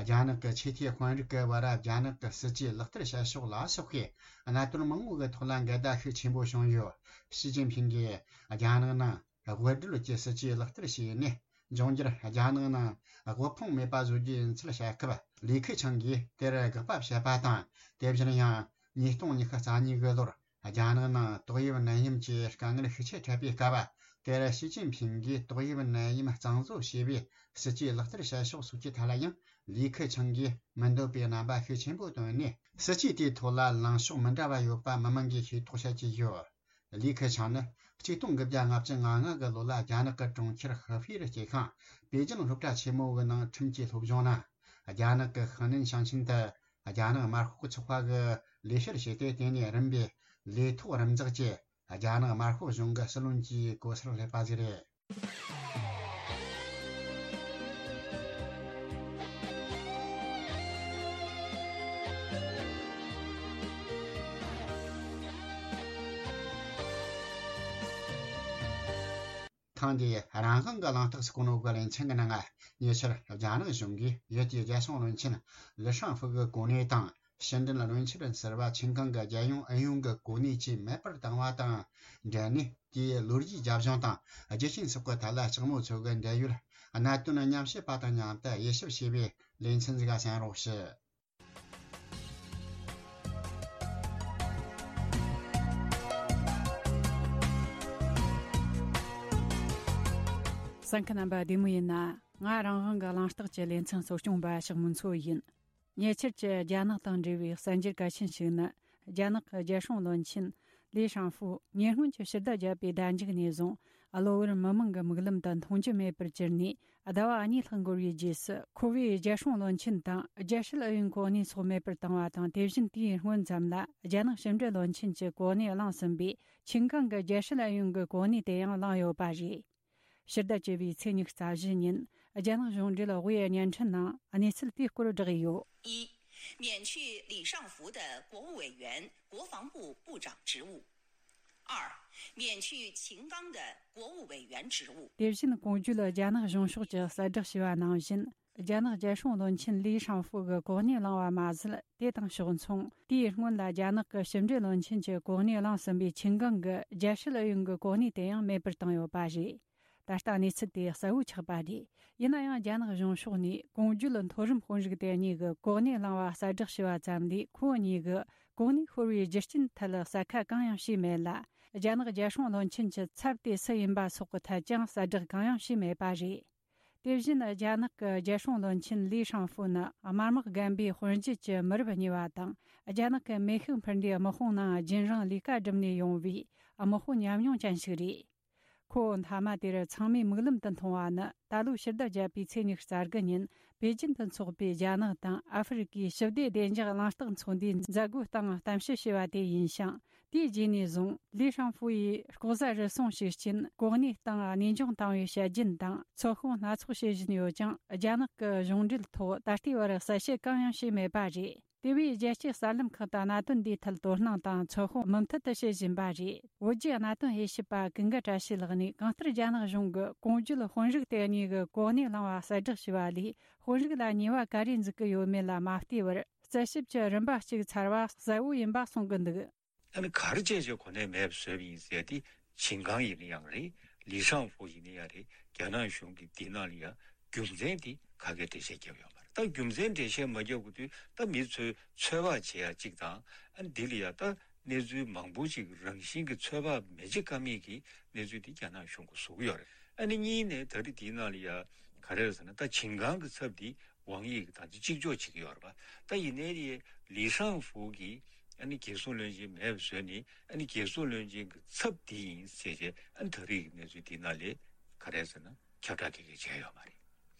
རྒྱ་ནག་གི་ཆེས་མཐོའི་དཔོན་རིགས་ཀྱི་བར་རྒྱ་ནག་གི་སྲིད་ཇུས་ལག་བསྟར་བྱ་ཕྱོགས་ལ་སོགས་པའི་གནད་དོན་མང་པོ་གི་ཐོག་ལ་འགལ་ཟླ་ཤུགས་ཆེན་པོ་བྱུང་ཡོད། ཞི་ཅིན་ཕིང་གིས་རྒྱ་ནག་ནང་དབུལ་སྒྲོལ་གྱི་སྲིད་ཇུས་ལག་བསྟར་བྱས་ནས། འབྱུང་འགྱུར་རྒྱ་ནག་ནང་དབུལ་ཕོངས་མེད་པ་བཟོ་རྒྱུ་ཡིན་ཚུལ་བཤད་སྐབས། ལི་ཁེ་ཆང་གིས་དེར་དགག་པ་བྱས་པ་དང་། དེ་བཞིན་ཡང་ཉིས་སྟོང་ཉི་ཤུ་རྩ་གཉིས་ཀྱི་ལོར་རྒྱ་ནག་ནང་ཏོག་དབྱིབས་ནད་ཡམས་ཀྱི་དཀའ་ངལ་ཤུགས་ཆེ་འཕྲད་པའི་སྐབས། དེར་ཞི་ཅིན་ཕིང་གིས་ཏོག་དབྱིབས་ནད་ཡམས་གཙང་བཟོ་བྱས་པའི་སྲིད་ཇུས་ལག་བསྟར་བྱ་ཕྱོགས་སོགས་ཀྱི་ཐད་ལ་ཡང་ལི་ཁེ་ཆང་གིས་མི་འདོད་པའི་རྣམ་པ་ཤུགས་ཆེན་པོ་བཏོན་ནས། སྲིད་ཇུས་དེའི་ཐོག་ལ་ལངས་ཕྱོགས་མི་འདྲ་བ་ཡོད་པ་མི་མང་གིས་ཤེས་རྟོགས་བྱ་གི་ཡོད། ལི་ཁེ་ཆང་ནི་ཆིག་སྟོང་དགུ་བརྒྱ་ལྔ་བཅུ་ང་ལྔ་གི་ལོ་ལ་རྒྱ་ནག་གི་གྲོང་ཁྱེར་ཧི་ཧྥེ་རུ་སྐྱེས་ཤིང་། པེ་ཅིན་སློབ་གྲྭ་ཆེན་མོ་གི་ནང་ཁྲིམས་ཀྱི་སློབ་སྦྱོང་གནང་། རྒྱ་ནག་གི་ཧི་ནན་ཞིང་ཆེན་དུ་རྒྱ་ནག་དམར་ཤོག་ཚོགས་པ་གི་ལས་བྱེད་བྱས་ཏེ། དེ་ནས་རིམ་པས་ལས་ཐོག་རིམ་འཛེགས་ཀྱིས་རྒྱ་ནག་དམར་ཤོག་གཞུང་གི་སྲིད་བློན་གྱི་གོ་སར་སླེབས་པ་ཞིག་རེད། ཐེངས་འདིའི་རང་དབང་གི་གླེང་སྟེགས་སུ་གོ་ནོ་གི་ལེ་ཚན་གྱི་ནང་ང་། ཉེ་ཆར་རྒྱ་ནག་གཞུང་གིས་ཡུལ་དེའི་རྒྱལ་སྲུང་བློན་ཆེན་ལི་ཧྲང་ཧྥུ་གི་གོ་གནས་དང་། ཕྱི་འབྲེལ་བློན་ཆེན་ཟུར་པ་ཆིན་ཀང་གི་རྒྱལ་ཡོངས་ཨུ་ཡོན་གྱི་གོ་གནས་བཅས་མེད་པར་བཏང་བ་དང་འབྲེལ་ནས། དེའི་ལོ་རྒྱུས་རྒྱབ་ལྗོངས་དང་རྒྱུ་རྐྱེན་སོགས་ཀྱི་ཐད་ལ་ལྕགས་མོ་མཚོ་གི་འབྲེལ་ཡོད་གནད་དོན་མཉམ་བཤད་པ་དང་མཉམ་དུ་དབྱེ་ཞིབ་བྱས་པའི་ལེ་ཚན་ཞིག་གསན་རོགས་ཞུ། གསན་མཁན་རྣམ་པ་བདེ་མོ་ཡིན་ན། ང་རང་དབང་གི་གླེང་སྟེགས་ཀྱི་ལེ་ཚན་གཙོ་སྐྱོང་པ་ཞག་མུན་མཚོ་ཡིན། ཉེ་ཆར་གྱི་རྒྱ་ནག་དང་འབྲེལ་བའི་གསར་འགྱུར་གལ་ཆེན་ཞིག་ནི། རྒྱ་ནག་གི་རྒྱལ་སྲུང་བློན་ཆེན་ལི་ཧྲང་ཧྥུ་ཉེ་སྔོན་གྱི་ཕྱི་ཟླ་བརྒྱད་པའི་ཟླ་མཇུག་ནས་བཟུང་། གློ་བུར་མི་མང་གི་མིག་ལམ་དུ་མཐོང་རྒྱུ་མེད་པར་གྱུར་ནས། ཟླ་བ་གཉིས་ལྷག་འགོར་བའི་རྗེས་སུ། ཁོ་བོས་རྒྱལ་སྲུང་བློན་ཆེན་དང་རྒྱལ་སྲིད་ཨུ་ཡོན་གོ་གནས་སོགས་མེད་པར་བཏང་བ་དང་། དེ་བཞིན་དེའི་སྔོན་ཙམ་ལ་རྒྱ་ནག་ཕྱི་འབྲེལ་བློན་ཆེན་གྱི་གོ་གནས་བླངས་ཟིན་པའི་ཆིན་ཀང་གི་རྒྱལ་སྲིད་ཨུ་ཡོན་གྱི་གོ་གནས་དེ་ཡང་བླངས་ཡོད་པ་རེད། ཕྱི་ཟླ་བཅུ་པའི་ཚེས་ཉི་ཤུ་རྩ་བཞི་ཉིན། རྒྱ་ནག་གཞུང་འབྲེལ་དབུས་བརྙན་འཕྲིན་ནང་གནས་ཚུལ་དེའི་སྐོར་བསྒྲགས་ཡོད། 一、免去李尚福的国务委员、国防部部长职务。二、免去秦刚的国务委员职务。 དེ་བཞིན་གོང་བརྗོད་རྒྱ་ནག་གཞུང་ཕྱོགས་ཀྱིས་གསལ་བསྒྲགས་བྱས་པ་ནང་བཞིན། རྒྱ་ནག་རྒྱལ་སྲུང་བློན་ཆེན་ལི་ཧྲང་ཧྥུ་གི་གོ་གནས་བླངས་པ་མ་ཟད། དེ་དང་ཕྱོགས་མཚུངས། དེའི་སྔོན་ལ་རྒྱ་ནག་གི་ཕྱི་འབྲེལ་བློན་ཆེན་གྱི་གོ་གནས་བླངས་ཟིན་པའི་ཆིན་ཀང་གི་རྒྱལ་སྲིད་ཨུ་ཡོན་གྱི་གོ་གནས་དེ་ཡང་མེད་པར་བཏང་ཡོད་པ་རེད། ད་ལྟ་གནས་ཚུལ་དེ་གསལ་བོ་ཆགས་པ་རེད། ཡིན་ན་ཡང་། རྒྱ་ནག་གཞུང་ཕྱོགས་ནས་གོང་བརྗོད་མཐོ་རིམ་དཔོན་རིགས་དེ་གཉིས་ཀྱི་གོ་གནས་བླངས་པ་གསལ་བསྒྲགས་བྱས་པ་ཙམ་ལས། ཁོ་གཉིས་ཀྱི་གོ་གནས་ཤོར་བའི་རྒྱུ་རྐྱེན་ཐད་གསལ་ཁ་གང་ཡང་བྱས་མེད་ལ། རྒྱ་ནག་རྒྱལ་སྲུང་བློན་ཆེན་གྱི་ཚབ་དེ་སུ་ཡིན་པ་སོགས་ཀྱི་ཐད་ཀྱང་གསལ་བསྒྲགས་གང་ཡང་བྱས་མེད་པ་རེད། དེ་བཞིན། རྒྱ་ནག་གི་རྒྱལ་སྲུང་བློན་ཆེན་ལི་ཧྲང་ཧྥུ་ནི་དམར་དམག་རྒན་པའི་དཔོན་བརྒྱུད་ཀྱི་མི་རབས་གཉིས་པ་དང་། རྒྱ་ནག་གི་མེ་ཤུགས་འཕུར་མདེལ་དམག་དཔུང་ནང་རྒྱུན་རིང་ལས་ཀ་བསྒྲུབས་ནས་ཡོང་བའི་དམག་དཔོན་ཉམས་མྱོང་ཅན་ཞིག་རེད། ཁོ་བོ་མཐའ་མ་དེར་ཚང་མས་མིག་ལམ་དུ་མཐོང་བ་ནི། ད་ལོའི་ཕྱི་ཟླ་བརྒྱད་པའི་ཚེས་ཉི་ཤུ་རྩ་དགུ་ཉིན། པེ་ཅིན་དུ་འཚོགས་པའི་རྒྱ་ནག་དང་ཨ་ཧྥེ་རི་ཀའི་ཞི་བདེ་བདེ་འཇགས་གླེང་སྟེགས་ཚོགས་འདུའི་མཛད་སྒོའི་སྟེང་གཏམ་བཤད་བྱས་པ་དེ་ཡིན་ཞིང་། དེའི་རྗེས་ནས་བཟུང་། ལི་ཧྲང་ཧྥུ་ཡིས་ལྐོག་ཟ་རུལ་སུངས་ཤུགས་རྐྱེན། གོ་གནས་སྟེང་གནས་སྦྱོང་བཏང་བའི་བཤད་རྒྱུན་དང་། ཚོད་དཔག་སྣ་ཚོགས་བྱེད་བཞིན་ཡོད་ཀྱང་། རྒྱ་ནག་གི་གཞུང་འབྲེལ་ཐོག་ད་ལྟའི་བར་གསལ་བཤད་གང་ཡང་བྱས་མེད་པ་རེད། དེ་བས། རྒྱལ་སྤྱིའི་གསར་ལམ་ཁག་ཏུ་གནད་དོན་འདིའི་ཐད་དོ་སྣང་དང་ཚོད་དཔག་མུ་མཐུད་དུ་བྱེད་བཞིན་པ་རེད། བོད་བརྒྱུད་གནད་དོན་དབྱེ་ཞིབ་པ་ཀུན་དགའ་བཀྲ་ཤིས་ལགས་ནས། གང་ལྟར་རྒྱ་ནག་གཞུང་གི་གོང་བརྗོད་དཔོན་རིགས་དེ་གཉིས་ཀྱི་གོ་གནས་བླངས་པ་གསལ་བསྒྲགས་བྱས་པ་ལས། དཔོན་རིགས་ལ་ཉེས་པ་ག་རེ་འཛུགས་ཀྱི་ཡོད་མེད་ལ་མ་བལྟས་པར། རྩད་ཞིབ་ཀྱི་རིམ་པ་གཅིག་ཚར་བ་གསལ་བོ་ཡིན་པ་གསུང་གི་འདུག། ཨ་ནི་ག་རེ་བྱས་བྱས་གོ་གནས་མེད་པ་བཟོས་པ་ཡིན་ཟེར་ཏེ། ཆིན་ཀང་ཡིན་ན་ཡང་རེད། ལི་ཧྲང་ཧྥུ་ཡིན་ན་ཡང་རེད། རྒྱ་ནག་གཞུང་གིས་འདི་ནང་ལ་ཡང་རྒྱུ་མཚན་དེ་ག་གེ་འགྲེལ་བཤད་བརྒྱབ་ཡོད་མ་རེད། ད་རྒྱུ་མཚན་འགྲེལ་བཤད་མ་བརྒྱབ་གི་དུས། ད་མི་ཚོས་ཚོད་དཔག་བྱེད་ཡ་གཅིག་དང་། ཨ་ནི་འདི་ལ་ཡང་ད་གནས་ཚུལ་མང་པོ་ཅིག་རང་བཞིན་གྱི་ཚོད་དཔག་མི་བྱེད་ཀ་མེད་ཀྱི་གནས་ཚུལ་འདི་རྒྱ་ནག་གཞུང་གིས་བཟོ་གི་ཡོད་རེད། ཨ་ནི་གཉིས་ནས་ད་རེས་འདི་ནང་ལ་ཡང་ག་རེ་རེད་ཟེར་ན། ད་ཆིན་ཀང་གི་ཚབ་འདི་ཝང་དབྱི་གིས་ད་ལྟ་གཅིག་ལྕོགས་བྱེད་ཀྱི་ཡོད་རེད་པ། ད་ཡིན་ནའི་ལི་ཧྲང་ཧྥུ་གིས་ཨ་ནི་རྒྱལ་སྲུང་བློན་ཆེན་མེད་པ་བཟོས་ནས། ཨ་ནི་རྒྱལ་སྲུང་བློན་ཆེན་གྱི་ཚབ་འདི་ཡིན་ཟེར་བྱས། ཨ་ནི་ད་རེས་ཀྱི་གནས་ཚུལ་འདི་ནང་ལ་ག་རེ་ཟེར་ན། ཁྱབ་བསྒྲགས་ག་གེ་བྱས་ཡོད་མ་རེད།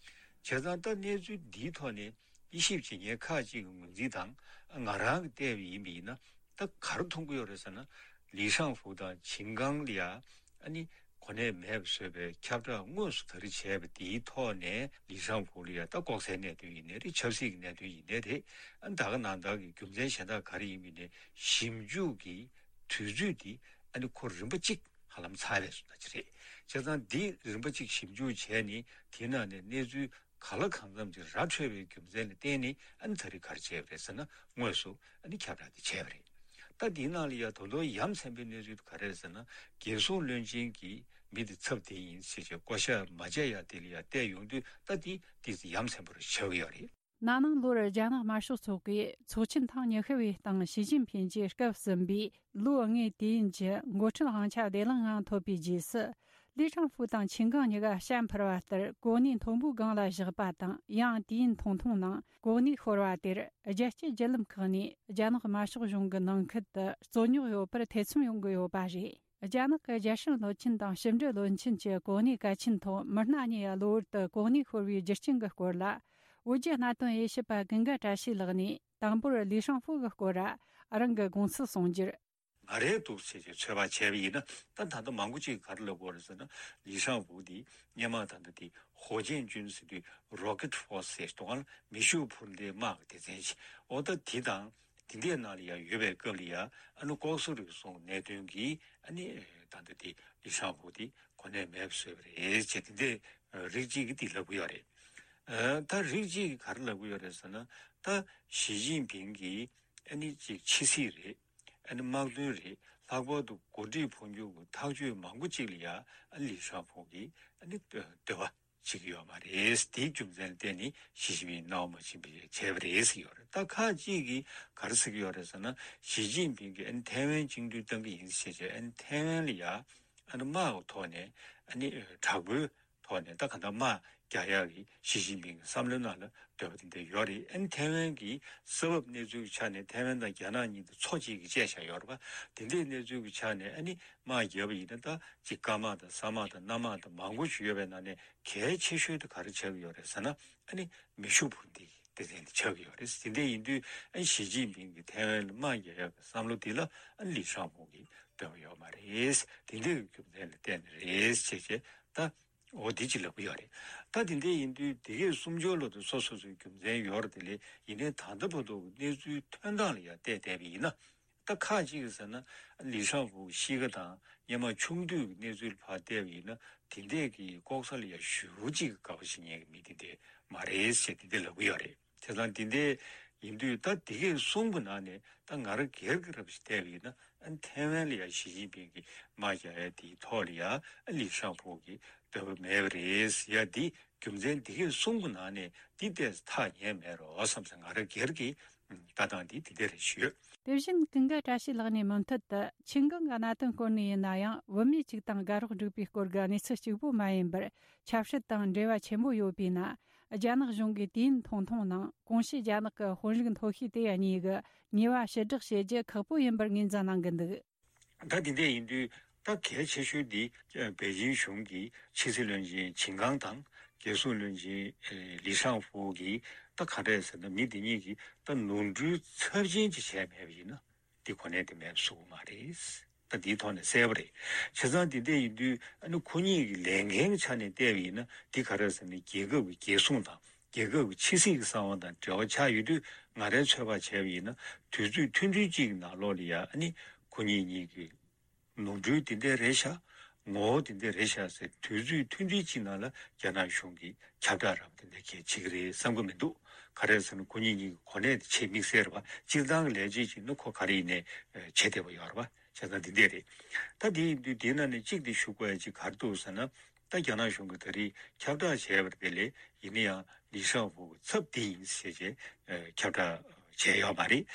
བྱས་ཙང་ད་གནས་ཚུལ་འདིའི་ཐོག་ནས་དབྱེ་ཞིབ་བྱེད་མཁན་ཁག་ཅིག་གི་ངོས་འཛིན་དང་། ང་རང་གིས་བལྟས་པ་ཡིན་པ་ཡིན་ན། ད་ག་རེ་མཐོང་གི་ཡོད་རེད་ཟེར་ན། ལི་ཧྲང་ཧྥུ་དང་ཆིན་ཀང་ལ་ཡ་ཨ་ནི་གོ་གནས་མེད་པ་བཟོས་པའི་ཁྱབ་བསྒྲགས་དངོས་སུ་ད་རེས་བྱས་པ་དེའི་ཐོག་ནས། ལི་ཧྲང་ཧྥུ་ལ་ཡ་ད་ལྐོག་ཟའི་གནད་དོན་ཡིན་ནའི་རེད། ཆབ་སྲིད་ཀྱི་གནད་དོན་ཡིན་ནའི་རེད། ཨ་ནི་ད་ག་ནང་བཞིན་གྱི་རྒྱུ་མཚན་གཞན་དག་ག་རེ་ཡིན་པ་ཡིན་ནའི། ཞིབ་འཇུག་གི་དུས་ཚོད་དེ་ ཨ་ནི་ཁོ་རིམ་པ་གཅིག་ཧ་ལམ་ཚར་བའི་བཟོ་ལྟ་ཅིག་རེད། བྱས་ཙང་འདི་རིམ་པ་གཅིག་ཞིབ་འཇུག་བྱས་ནས་དེའི་ནང་ནས་གནས་ཚུལ་ག་ལ་གང་འཚམ་ཅིག་ར་འཕྲོད་པའི་རྒྱུ་མཚན་ལ་བརྟེན་ནས་ཨ་ནི་ད་རེས་ག་རེ་བྱས་པ་རེད་ཟེར་ན། དངོས་སུ་ཨ་ནི་ཁྱབ་བསྒྲགས་དེ་བྱས་པ་རེད། ད་དེའི་ནང་ལ་ཡ་ད་དུང་ཡ་མཚན་པའི་གནས་ཚུལ་དེ་ག་རེ་རེད་ཟེར་ན། རྒྱལ་སྲུང་བློན་ཆེན་གྱིས་མི་དེ་ཚབ་དེ་ཡིན་ཟེར་བྱས་བསྐོ་བཞག་མ་བྱས་ཡ་དེ་ལ་ཡ་བལྟས་ཡོང་དུས། ད་དེ་དེ་ཡ་མཚན་པོ་རེད་ཆགས་ཀྱི་ཡོད་རེད། ན་ནིང་ལོར་རྒྱ་ནག་དམར་ཤོག་ཚོགས་པས་ཚོགས་ཆེན་ཐེངས་ཉི་ཤུ་བའི་སྟེང་ཞི་ཅིན་ཕིན་གྱིས་སྐབས་ཟིན་པའི་ལོ་ལྔའི་དུས་ཡུན་གྱི་འགོ་ཁྲིད་དབང་ཆ་བདེ་བླག་ངང་ཐོབ་པའི་རྗེས་སུ། ལི་ཧྲང་ཧྥུ་དང་ཆིན་ཀང་གཉིས་ཀ་བྱ་འཕུར་བ་ལྟར་གོ་གནས་མཐོན་པོའི་སྒང་ལ་བཞག་པ་དང་། ཡང་དུས་ཡུན་ཐུང་ཐུང་ནང་གོ་གནས་ཤོར་བ་དེར། རྒྱལ་སྤྱིའི་བརྒྱུད་ལམ་ཁག་ནས་རྒྱ་ནག་དམར་ཤོག་གཞུང་གི་ནང་ཁུལ་དུ་རྩོད་རྙོག་ཡོད་པར་ཐེ་ཚོམ་ཡོང་གི་ཡོད་པ་རེད། རྒྱ་ནག་གི་རྒྱལ་སྲུང་བློན་ཆེན་དང་ཕྱི་འབྲེལ་བློན་ཆེན་གྱི་གོ་གནས་གལ་ཆེན་ཐོག་མི་སྣ་གཉིས་གློ་བུར་དུ་གོ་གནས་ཤོར་བའི་རྒྱུ་རྐྱེན་གྱི་སྐོར་ལ། བོད་བརྒྱུད་གནད་དོན་དབྱེ་ཞིབ་པ་ཀུན་དགའ་བཀྲ་ཤིས་ལགས་ནས་དང་པོར་ལི་ཧྲང་ཧྥུ་གི་སྐོར་ར་རང་གི་དགོངས་ཚུལ་གསུངས་རྒྱུར། ང་རེད་འདུག་ཟེར་བྱས་ཚོད་དཔག་བྱས་པ་ཡིན་ན། ད་ད་ལྟ་མང་པོ་ཅིག་ག་རེ་ལབ་ཀྱི་ཡོད་རེད་ཟེར་ན། ལི་ཧྲང་ཧྥུ་དེ་སྔོན་མ་ད་ལྟ་དེ་ཧོ་ཅན་ཅུན་ཟེར་དུས་རོ་ཀེ་ཊི་ཧྥོར་སི་ཟེར་དུས་སྒང་ལ་མེ་ཤུགས་འཕུར་མདེལ་དམག་གི་སྡེ་ཚན་ཞིག་འོ་ད་དེ་དང་དེ་འདྲའི་ནང་ལ་ཡ་ཡོད་པའི་སྐབས་ལ་ཡ། ཨ་ནི་ལྐོག་ཟ་རུལ་སུངས་གནད་དོན་གྱིས་ཨ་ནི་ད་ལྟ་དེ་ལི་ཧྲང་ཧྥུ་དེ་གོ་གནས་མེད་པ་བཟོས་པ་རེད་ཅེས་དེ་འདྲའི་རིགས་གཅིག་གིས་དེ་ལབ་ཀྱི་ཡོད་རེད། ཨ། ད་རིགས་གཅིག་གིས་ག་རེ་ལབ་ཀྱི་ཡོད་རེད་ཟེར་ན། ད་ཞི་ཅིན་ཕིང་གིས་ཨ་ནི་ཅིག་ཕྱི་སྲིད་རེད། ཨ་ནི་དམག་དོན་རེད། ལྷག་པར་དུ་འགོ་ཁྲིད་འཕོ་འགྱུར་གྱི་ཐག་གཅོད་མང་པོ་ཅིག་ལ་ཡ་ཨ་ལི་ཧྲང་ཧྥུ་གིས་ཨ་ནི་འདོད་པ་བྱེད་ཀྱི་ཡོད་མ་རེད། དེའི་རྒྱུ་མཚན་ལ་བརྟེན་ནས་ཞི་ཅིན་ཕིང་སྣང་བ་མ་བྱིན་པ་བྱས་པ་རེད་ཟེར་ཡོད་རེད། ད་ཁག་ཅིག་གིས་ག་རེ་ཟེར་གྱི་ཡོད་རེད་ཟེར་ན། ཞི་ཅིན་ཕིང་གིས་ཨ་ནི་ཐའེ་ཝན་བཅིངས་འགྲོལ་བཏང་གི་ཡིན་ཟེར་བྱས། ཨ་ནི་ཐའེ་ཝན་ལ་ཡ་ཨ་ནི་དམག་གི་ཐོག་ནས་ཨ་ནི་དྲག་པོའི་ཐོག་ནས་ད་གང་ལྟར་དམག་རྒྱག་ཡག་གི་ཞི་ཅིན་ཕིང་གི་བསམ་བློའི་ནང་ལ་འདོད་པ་དེ་འདྲ་ཡོད་རེད། ཨ་ནི་ཐའེ་ཝན་གྱི་ས་བབ་གནས་ཚུལ་གྱི་ཆ་ནས་ཐའེ་ཝན་དང་རྒྱ་ནག་གཉིས་དེ་མཚོ་གཅིག་གིས་བཅད་བཞག་ཡོད་རེད་པ། དེ་འདྲའི་གནས་ཚུལ་གྱི་ཆ་ནས་ཨ་ནི་དམག་བརྒྱབ་པ་ཡིན་ན། ད་ཅིག་སྐར་དམག་དང་ས་དམག་དང་གནམ་དམག་དང་མང་པོ་ཞིག་ཡོད་པའི་ནང་ནས་གལ་ཆེ་ཤོས་དེ་ག་རེ་ཆགས་ཀྱི་ཡོད་རེད་ཟེར་ན། ཨ་ནི་མེ་ཤུགས་འཕུར་མདེལ་གྱི་སྡེ་ཚན་དེ་ཆགས་ཀྱི་ཡོད་རེད། དེ་འདྲ་ཡིན་དུས་ཨ་ནི་ཞི་ཅིན་ཕིང་གིས་ཐའེ་ཝན་ལ་དམག་རྒྱག་ཡག་གི་བསམ་བློ་དེ་ལ་ཨ་ནི་ལི་ཧྲང་ཧྥུ་གིས་འདོད་པ་ཡོད་མ་རེད། དེ་འདྲའི་རྒྱུ་མཚན་ལ་བརྟེན་ནས་རེད་ཅེས་བྱས། ད་འོ་དེ་ཅིག་ལབ་ཀྱི་ཡོད་རེད། ད་དེ་འདྲ་ཡིན་དུས་དེ་གའི་སུམ་ཅུ་ལོ་དེ་སོ་སོ་སོའི་རྒྱུ་མཚན་ཡོད་རེད། དེ་ལས་ཡིན་ནའི་ད་ལྟ་བར་དུ་གནས་ཚུལ་ཐོན་སྟངས་ལ་ཡང་བལྟས་བསྡད་པ་ཡིན་ན། ད་ཁག་ཅིག་གིས་ཟེར་ན། ལི་ཧྲང་ཧྥུ་གཤིས་ཀ་དང་སྔོན་མ་ཆུང་དུས་ཀྱི་གནས་ཚུལ་ཕར་བལྟས་པ་ཡིན་ན། དེ་འདྲས་ཀྱི་ལྐོག་ཟ་ལ་ཡང་ཞེ་པོ་ཅིག་དགའ་པོ་བྱེད་མཁན་གྱི་མི་དེ་འདྲས་མ་རེད་ཟེར་དེ་འདྲས་ལབ་ཀྱི་ཡོད་རེད། བྱས་ཙང་དེ་འདྲས་ཡིན་དུས། ད་དེ་གས་གསུམ་གྱི་ནང་ནས་ད་ང་རང་སྒེར་གྱི་རབ་ཞིག་བལྟས་པ་ཡིན་ན། ཨ་ནི་ཐའེ་ཝན་ལ་ཡང་ཞི་ཅིན་ཕིང་གིས་དམག་རྒྱག་ཡ་དེའི་ཐོག་ལ་ཡང་ཨ་ལི་ཧྲང་ཧྥུ་གིས་འདོད་པ་མེད་པ་རེད་ཟེར་ཡ་དེ། རྒྱུ་མཚན་འདི་གས་གསུམ་གྱི་ནང་ནས་འདི་ལྟས་སུ་ཐག་ཉེ་མེད་རོགས་བསམ་ཟེར། ང་རང་སྒེར་གྱི་ལྟ་སྟངས་འདི་འདི་འདྲ་རེད་ཞུས། དེ་བཞིན་ཀུན་དགའ་བཀྲ་ཤིས་ལགས་ནས་མུ་མཐུད་དུ་ཆིན་ཀང་གི་གནད་དོན་སྐོར་ནས་ཡིན་ན་ཡང་། བུད་མེད་གཅིག་དང་དགའ་རོགས་འགྲིག་པའི་སྐོར་གྱི་གནས་ཚུལ་གཅིག་པུ་མ་ཡིན་པར། ཆབ་སྲིད་དང་འབྲེལ་བ་ཆེན་པོ་ཡོད་པས་ན། རྒྱ་ནག་གཞུང་གིས་དུས་ཡུན་ཐུང་ཐུང་ནང་གོང་ཞུས་རྒྱ་ནག་གི་དཔོན་རིགས་མཐོ་ཤོས་དེ་གཉིས་ཀྱི་ཉེས་པ་ཕྱིར་བསྒྲགས་བྱེད་རྒྱུ་ཁག་པོ་ཡིན་པར་ངོས་འཛིན་གནང་གི་འདུག། ད་དེ་འདྲ་ཡིན་དུས། ད་གལ་ཆེ་ཤོས་འདི་པེ་ཅིང་གཞུང་གི་ཕྱི་སྲིད་བློན་ཆེན་ཆིན་ཀང་དང་རྒྱལ་སྲུང་བློན་ཆེན་ལི་ཧྲང་ཧྥུ་གིས་ད་ག་འདྲས་ཟེར་ན། མི་འདི་གཉིས་ཀྱིས་ད་ནོར་འཁྲུལ་ཚབས་ཆེན་ཅིག་བྱས་མེད་པ་ཡིན་ན། འདི་གོ་གནས་དེ་མེད་པ་བཟོ་གི་མ་རེད། ད་འདིའི་ཐོག་ནས་གསལ་པོ་རེད། བྱས་ཙང་འདི་འདྲ་ཡིན་དུས། ཨ་ནི་ཁོ་གཉིས་ཀྱི་ལས་འགན་གྱི་ཆ་ནས་བལྟས་པ་ཡིན་ན། འདི་ག་རེ་ཟེར་ན། རྒྱལ་ཁབ་ཀྱི་རྒྱལ་སྲུང་དང་རྒྱལ་ཁབ་ཀྱི་ཕྱི་སྲིད་ཀྱི་གསང་བ་དང་འབྲེལ་བ་ཆགས་ཡོད་དུས། ང་རའི་ཚོད་དཔག་བྱས་པ་ཡིན་ན། དུས་ཚོད་ཐུང་ཐུང་གཅིག་གི་ནང་ལོགས་ལ་ཡ། ཨ་ནི་ཁོ་གཉིས་གཉིས་ཀྱི་ནོར་འཁྲུལ་དེ་འདྲ་རེད་ཤག། ངོ་བོ་དེ་འདྲ་རེད་ཤག་ཟེར། དུས་ཚོད་ཐུང་ཐུང་གཅིག་ནང་ལ་རྒྱ་ནག་གཞུང་གིས་ཁྱབ་བསྒྲགས་ར་བ་དེ་འདྲ་གས་བྱེད་ཀྱི་རེད་བསམ་གྱི་མི་འདུག། ག་རེ་ཟེར་ན། ཁོ་གཉིས་གཉིས་ཀྱི་གོ་གནས་དེ་ཆེས་དམིགས་བསལ་རེད་པ། སྤྱིར་བཏང་གི་ལས་བྱེད་ཅིག་ནི་ཁོ་ག་རེ་ཡིན་ནའི་བྱེད་བདེ་པོ་ཡོད་རེད་པ། བྱས་ཙང་འདི་འདྲ་རེད། ད་དེ་ཡིན་དུས་དེའི་ནང་ནས་གཅིག་དེ་ཞུ་དགོས་ཡ་ཅིག་ག་རེ་འདུག་ཟེར་ན། ད་རྒྱ་ནག་གཞུང་གིས་ད་རེས་ཁྱབ་བསྒྲགས་བྱས་པ་དེ་ལས། ཡིན་ན་ཡང་ལི་ཧྲང་ཧྥུ་གི་ཚབ་འདི་ཡིན་ཟེར་བྱས་ཁྱབ་བསྒྲགས་བྱས་ཡོད་མ་རེད།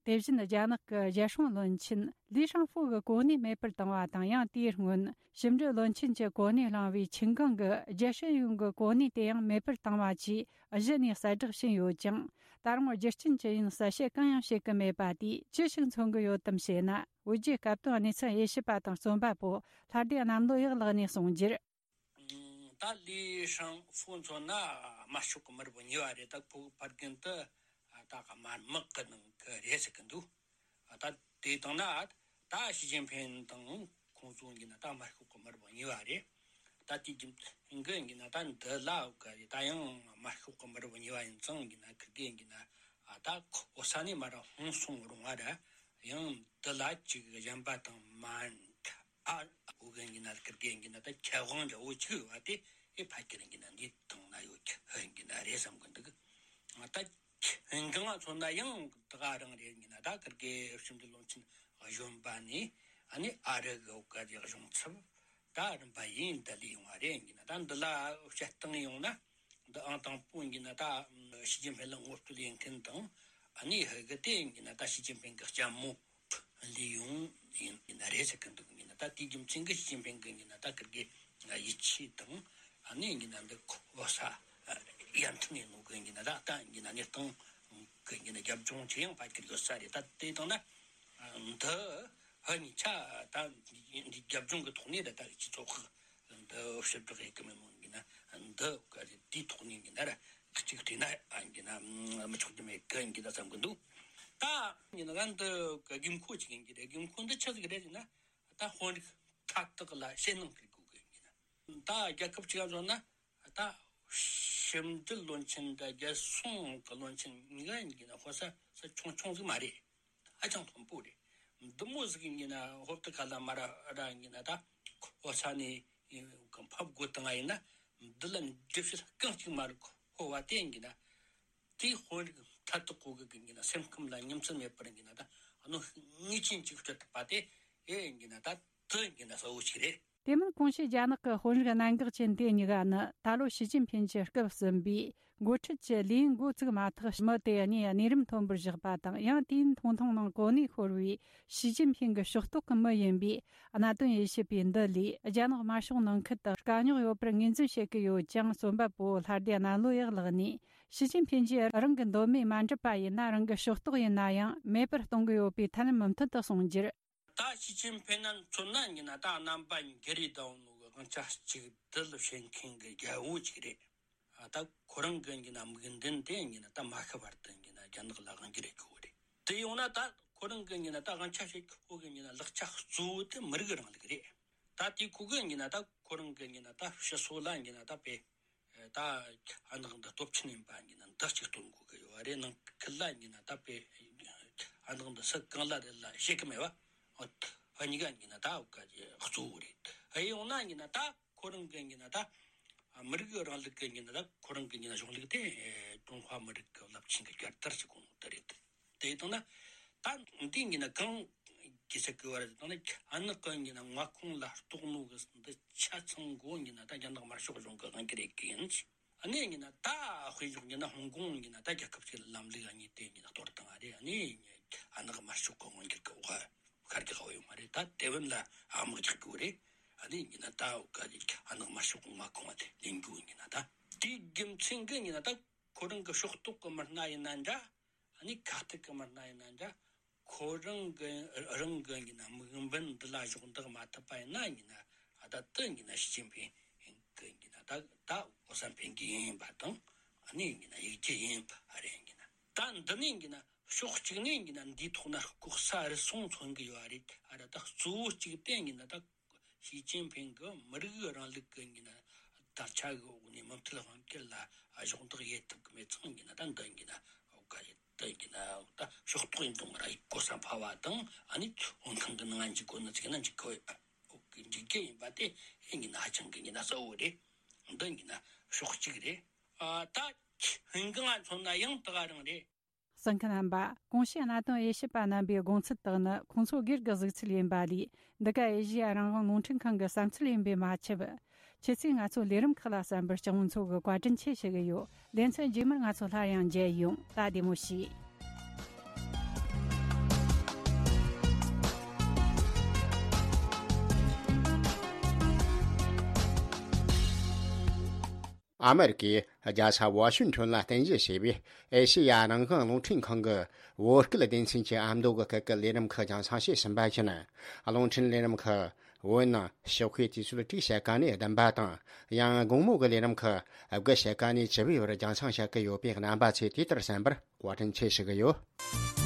དེ་བཞིན་རྒྱ་ནག་གི་རྒྱལ་སྲུང་བློན་ཆེན་ལི་ཧྲང་ཧྥུ་གི་གོ་གནས་མེད་པར་བཏང་བ་དང་། ཡང་དེའི་སྔོན་ཕྱི་འབྲེལ་བློན་ཆེན་གྱི་གོ་གནས་བླངས་པའི་ཆིན་ཀང་གི་རྒྱལ་སྲིད་གཞུང་གི་གོ་གནས་དེ་ཡང་མེད་པར་བཏང་བ་བཅས་གཞི་ནས་གསལ་བསྒྲགས་ཕྱིན་ཡོད་ཀྱང་། ད་རུང་རྒྱུ་རྐྱེན་ཅི་ཡིན་གསལ་བཤད་གང་ཡང་བྱེད་ཀྱི་མེད་པ་དེས་ཅི་ཞིག་མཚོན་གྱི་ཡོད་དམ་ཞེ་ན། བོད་བརྒྱུད་སྐབས་དོན་གནས་ཚུལ་དབྱེ་ཞིབ་པ་དང་རྩོམ་པ་པོ་ལྷ་སྡེ་གནམ་ལོ་ཡག་ལགས་ནས་གསུངས་རྒྱུར། ད་ལི་ཧྲང་ཧྥུ་མཚོན་ན་དམར་ཤོག་གི་མི་རབས་གཉིས་པ་རེད། ད་ཕྲུ་གུ་ཕ་རྒན་དེ་ད་དམར་དམག་གི་ནང་གི་རེད་ཟེར་གི་འདུག། ད་དེ་དང་ན་ད་ཞི་ཅིན་ཕིན་དང་ཁོང་ཚོ་གཉིས་ན་ད་དམར་ཤོག་གི་མི་རབས་གཉིས་པ་རེད། ད་དེ་རྒྱུ་མཚན་གྱིས་ན་ད་འདི་ལ་གི་ད་ཡང་དམར་ཤོག་གི་མི་རབས་གཉིས་པ་ཡིན་ཙང་གྱིས་ན་ཁི་དགེ་གྱིས་ན་ད་ཁོ་ས་ནས་མར་ཧོན་སོང་རུང་བ་ར། ཡང་འདི་ལ་ཅིག་གཞན་པ་དང་མ་འདྲ་ ཨ། འུ་གི་ཡིན་ན་ཀིར་གི་ཡིན་ན་ད་ཁྱད་དབང་འདྲ་བོ་ཅིག་ཡོད་པ་དེ་ཨེ་ཕལ་ཆེར་ཡིན་ན་འདི་དང་ན་ཡོད་ཀྱི་ཡིན་ན་རེད་བསམ་གི་འདུག་ད་ང་ཚོ་ན་ཡང་ད་ག་རང་རེད་ཡིན་ན་ད་ཀིར་གི་ཕྱི་འབྲེལ་བློན་ཆེན་གཞོན་པ་ནས་ཨ་ནི་ཨ་རི་གི་འུ་ག་གི་གཞུང་ཚབ་ད་རིམ་པ་ཡིན་ད་ལས་ཡོང་བ་རེད་ཡིན་ན། ད་འདི་ལ་བཤད་སྟངས་ཡོང་ན། འདི་ཨང་དང་པོ་ཡིན་ན་ད་ཞི་ཅིན་ཕིན་ལ་ངོ་སྤྲོད་ཡིན་མཁན་དང་། ཨ་ནི་ཧི་གི་དེ་ཡིན་ན་ད་ཞི་ཅིན་ཕིན་གི་ལྕམ་མོ་ལི་ཡུང་ཡིན་ཡིན་ན་རེད་ཟེར་གི་འདུག་ཡིན་ན་ད་དེའི་རྒྱུ་མཚན་གི་ཞི་ཅིན་ཕིན་གི་ཡིན་ན་ད་ཀིར་གི་ཡིད་ཆེས་དང་། ཨ་ནི་ཡིན་ན་འདི་གོ་ས་ཡར་ཐོན་ཡིན་ནོ་གི་ཡིན་ན་ད་ད་ཡིན་ན་གནས་སྟངས་གི་ཡིན་ན་རྒྱབ་ལྗོངས་ཆེ་ཡང་ཕལ་ཆེར་ཡོད་ས་རེད། ད་དེ་དང་ན་འདི་ཧ་ཉི་ཆ་ད་འདི་རྒྱབ་ལྗོངས་གི་ཐོག་ནས་ད་ད་སྤྱི་ཚོགས་འདི་ཕྱིར་བསྒྲགས་ཡེད་གི་མེད་མོ་ཡིན་ན་འདི་ག་རེ་དེའི་ཐོག་ནས་ཡིན་ན་ར་གཅིག་བལྟས་ན་ཨ་ཡིན་ན་མི་ཆོག་གི་མེད་གི་ཡིན་གི་ད་བསམ་གི་འདུག་ད་ཡིན་ན་འདི་དགོས་མཁོ་ཅིག་ཡིན་གི་རེད། དགོས་མཁོ་འདི་ཆི་ཟིག་རེད་ཟེར་ན། ད་དཔོན་རིགས་མཐའ་དག་ལ་ཞེད་སྣང་སྐྱེ་དགོས་གི་ཡིན་གི་ན། ད་རྒྱལ་ཁབ་ཅིག་ལ་བཟོ་ན་ད་ཕྱི་འབྲེལ་བློན་ཆེན་དང་རྒྱལ་སྲུང་གི་བློན་ཆེན་གཉིས་ཀ་ཡིན་གི་ན་ཧོ་ས་ས་ཆུང་ཆུང་ཟིག་མ་རེད། ཧ་ཅང་མཐོན་པོ་རེད། འདི་མོ་ཟིག་ཡིན་གི་ན་ཧོབ་ཏི་ཁ་ལ་མ་ར་ར་ཡིན་གི་ན་ད་ཧོ་ས་ནས་ཕབ་དགོས་བཏང་ང་ཡིན་ན་འདི་ལ་འགྲེལ་བཤད་རྐང་གཅིག་མ་རེད། ཧོ་བ་དེ་ཡིན་གི་ན། དེའི་དཔོན་རིགས་མཐའ་དག་གོ་གི་གི་ཡིན་ན་སེམས་ཁམས་ལ་ཉམས་སད་མེད་པར་ཡིན་ན་ད་ཨ་ནོ་ངེས་ཅན་ཅིག་སྤྲད་ཐུབ་པ་དེ་ཨེ་ཡིན་ན་ད་དེ་ཡིན་ན་གསལ་བོ་ཞིག་རེད། དེ་མིན་གོང་ཞུས་རྒྱ་ནག་གི་དཔོན་རིགས་གནད་འགག་ཅན་དེ་གཉིས་ཀ་ནི་ད་ལོ་ཞི་ཅིན་ཕིན་གྱི་སྐབས་ཟིན་པའི་འགོ་ཁྲིད་ཀྱི་ལས་འགོ་བཙུགས་མ་ཐག་མི་དེ་གཉིས་གནས་རིམ་མཐོན་པོར་བཞག་པ་དང་ཡང་དེའི་མཐོང་ཐང་ནང་གོ་གནས་ཤོར་བའི་ཞི་ཅིན་ཕིན་གྱི་ཕྱོགས་གཏོགས་ཀྱི་མི་ཡིན་པའི་གནད་དོན་དབྱེ་ཞིབ་པས་འདི་ལས་རྒྱ་ནག་དམར་ཤོག་ནང་ཁུལ་དུ་དཀའ་རྙོག་ཡོད་པར་ངོས་འཛིན་བྱེད་ཀྱི་ཡོད་ཅིང་རྩོམ་པ་པོ་ལྷ་སྡེ་གནམ་ལོ་ཡག་ལགས་ནས། ཞི་ཅིན་ཕིན་གྱིས་རང་གི་འདོད་མོས་མ་འགྲུབ་པ་ཡིན་ན་རང་གི་ཕྱོགས་གཏོགས་ཡིན་ན་ཡང་མེད་པར་གཏོང་གི་ཡོད་པའི་ཐབས་ལམ་མུ་མཐུད་དུ་གསུངས་རྒྱུར། ད་ཞི་ཅིན་ཕིན་ན་མཚོན་ན་ཡིན་ན་ད་རྣམ་པ་འགྱུར་རེ་ད་འོང་ནོ་གི་དབང་ཆ་གཅིག་སྡུད་བྱེད་མཁན་གྱི་རྒྱལ་པོ་གཅིག་རེད། ད་ཁོ་རང་གི་ཡིན་ན་དམིགས་འདུན་དེ་ཡིན་ན་ད་མ་ཤི་བར་དུ་ཡིན་ན་རྒྱ་ནག་ལ་དབང་སྒྱུར་བྱེད་དགོས་རེད། དེ་ཡོང་ན་ད་ཁོ་རང་གི་ཡིན་ན་ད་དབང་ཆ་བྱེད་ཁོ་གི་ཡིན་ན་ལག་ཆ་གཙོ་བོ་དེ་མི་རིགས་རིང་ལུགས་རེད། ད་དེ་ཁོ་གི་ཡིན་ན་ད་ཁོ་རང་གི་ཡིན་ན་ད་ཕྱི་སོ་ལ་ཡིན་ན་ད་དཔེ། ད་ཨ་ནག་འདི་སྟོབས་ཆེན་ཡིན་པ་ཡིན་ན་འདི་གཅིག་སྟོན་དགོས་ཀྱི་ཡོད་རེད། ནང་ཁུལ་ལ་ཡིན་ན་ད་དཔེ་ཨ་ནག་འདི་སུ་གང་ལ་རེད་ལ་ཤེས་ཀྱི་མེད་བ། ཨ་གཉིས་ཀ་ཡིན་ན་ད་འུ་ག་གི་གཙོ་བོ་རེད། ཨ་ཡོང་ན་ཡིན་ན་ད་ཁོ་རང་གི་ཡིན་ན་ད་མི་རིགས་རིང་ལུགས་ཀྱི་ཡིན་ན་ད་ཁོ་རང་གི་ཡིན་ན་གཞུང་ལུགས་དེ་ཀྲུང་ཧྭ་མི་རིགས་ཀྱི་རླབས་ཆེན་གྱི་རྒྱལ་དར་ཟེར་གོ་ནོ་དེ་རེད། དེ་དང་ན་ད་འདི་ཡིན་ན་གང་གི་ཟེར་གི་བ་རེད། དང་ན་ཨ་ནག་གི་ཡིན་ན་མངའ་ཁོངས་ལ་གཏོགས་ནོ་གི་འདི་ཆ་ཚང་གོ་ཡིན་ན་ད་རྒྱ་ནག་དམར་ཤོག་གཞུང་གི་དབང་སྒྱུར་ཡེད་གི་ཡིན། ཨ་ནི་ཡིན་ན་ད་དཔེ་བཞག་ཡིན་ན་ཧོང་ཀོང་ཡིན་ན་ད་རྒྱལ་ཁབ་ཅིག་ལ་ལམ་ལུགས་ཨ་ནི་དེ་ཡིན་ན་གཏོར་བཏང་ཨ་རེད། ཨ་ནི་ཨ་ནག་དམར་ཤོག་གི་དབང་སྒྱུར་གི་འོག་ཤར་གི་ཧ་ཡོད་མ་རེད། ད་ཏེ་ཝན་ལ་ཨ་མག་རྒྱག་གི་རེད། ཨ་ནི་ཡིན་ན་ད་འུ་ག་ཨ་ནག་དམར་ཤོག་གི་མངའ་ཁོངས་ཨ་དེ་ལེན་རྒྱུ་ཡིན་ན་ད་དེའི་རྒྱུ་མཚན་གི་ཡིན་ན་ད་ཁོ་རང་གི་ཕྱོགས་གཏོགས་གི་མི་སྣ་ཡིན་ན་འདྲ། ཨ་ནི་ཁ་གཏད་གི་མི་སྣ་ཡིན་ན་འདྲ། ཁོ་རང་གི་རང་གི་ཡིན་ན་དམིགས་འབེན་འདི་ལ་གཞོགས་འདེགས་མ་ཐུབ་པ་ཡིན་ན་ཡིན་ན་ཨ་ད་དེ་ཡིན་ན་ཞི་ཅིན་ཕིན་གི་ཡིན་ན་ད་ད་གོ་ས་འཕེན་གི་ཡིན་པ་དང་ཨ་ནི་ཡིན་ན་ཡིག་རྒྱུ་ཡིན་པ་རེད། ཡིན་ན་ད་འདི་ནས་ཡིན་ན་ཕྱོགས་གཅིག་ནས་ཡིན་ན་འདིའི་ཐོག་ན་ལྐོག་ས་རུལ་སུངས་མཚོན་གི་ཡོད་རེད། ཨ་ར་ད་གཙོ་བོ་གཅིག་དེ་ཡིན་ན་ད། ཞི་ཅིན་ཕིན་གྱི་མི་རིགས་རིང་ལུགས་ཀྱི་ཡིན་ན་དར་ཆ་གི་འོག་ནས་མུ་མཐུད་དབང་སྒྱུར་ལ་གཞོགས་འདེགས་ཡེད་ཐུབ་ཀྱི་མེད་ཙང་ཡིན་ན་ད་འདི་ཡིན་ན་འོ་ག་ཡིན་འདི་ཡིན་ན་ད་ཕྱོགས་གཏོགས་ཡིན་དང་མ་ར་གོ་ས་འཕར་བ་དང་ཨ་ནི་འོན་ཐང་གི་ནང་འཇིག་གོ་ནི་ཚིག་ན་འཇིག་གོ་འཇིག་རྒྱུ་ཡིན་པ་དེ་ཡིན་ན་ཧ་ཅང་གི་ཡིན་ན་གསལ་བོ་རེད། འདི་ཡིན་ན་ཕྱོགས་གཅིག་རེད། ཨ་ད་ཧིན་གི་ང་མཚོན་ན་ཡང་ད་ག་རང་རེད། གསན་མཁན་རྣམ་པ། གོང་ཞུས་གནད་དོན་དབྱེ་ཞིབ་པ་རྣམ་པའི་དགོངས་ཚུལ་དག་ནི་ཁོང་ཚོ་སྒེར་གྱི་གཟིགས་ཚུལ་ཡིན་པ་ལས། འདི་ག་ཨེ་ཤི་ཡ་རང་དབང་རླུང་འཕྲིན་ཁང་གི་བསམ་ཚུལ་ཡིན་པས་མ་ཆད། ཁྱེད་ཚོས་ང་ཚོའི་ལས་རིམ་ཁག་ལ་གསན་པར་སྤྱི་ཡོངས་ཚོ་གིས་བཀའ་དྲིན་ཆེ་ཞུ་གི་ཡོད། ལེ་ཚན་རྗེས་མར་ང་ཚོ་སླར་ཡང་མཇལ་ཡོང་། ད་བདེ་མོ་བྱོས། ཨ་མེ་རི་ཀའི་རྒྱལ་ས་ཝ་ཤིང་ཊོན་ལ་རྟེན་གཞི་བྱས་པའི་ཨེ་ཤེ་ཡ་རང་དབང་རླུང་འཕྲིན་ཁང་གི་བོད་སྐད་སྡེ་ཚན་གྱི་ཨ་མདོ་གི་སྐད་ཀྱི་ལས་རིམ་ཁག་རྒྱང་སྲིང་བྱས་ཟིན་པ་བཞིན། རླུང་འཕྲིན་ལས་རིམ་ཁག་བོད་ནང་ཞོགས་ཀའི་དུས་ཚོད་དྲུག་ཕྱེད་ཀ་ནས་བདུན་པ་དང་། ཡང་དགོང་མོ་གི་ལས་རིམ་ཁག་དགུ་ཕྱེད་ཀ་ནས་བཅུ་པའི་བར་རྒྱང་སྲིང་བྱེད་ཀྱི་ཡོད་པས། རྣམ་པ་ཚོས་དུས་ལྟར་གསན་པར་བཀའ་དྲིན་ཆེ་ཞུ་གི་ཡོད།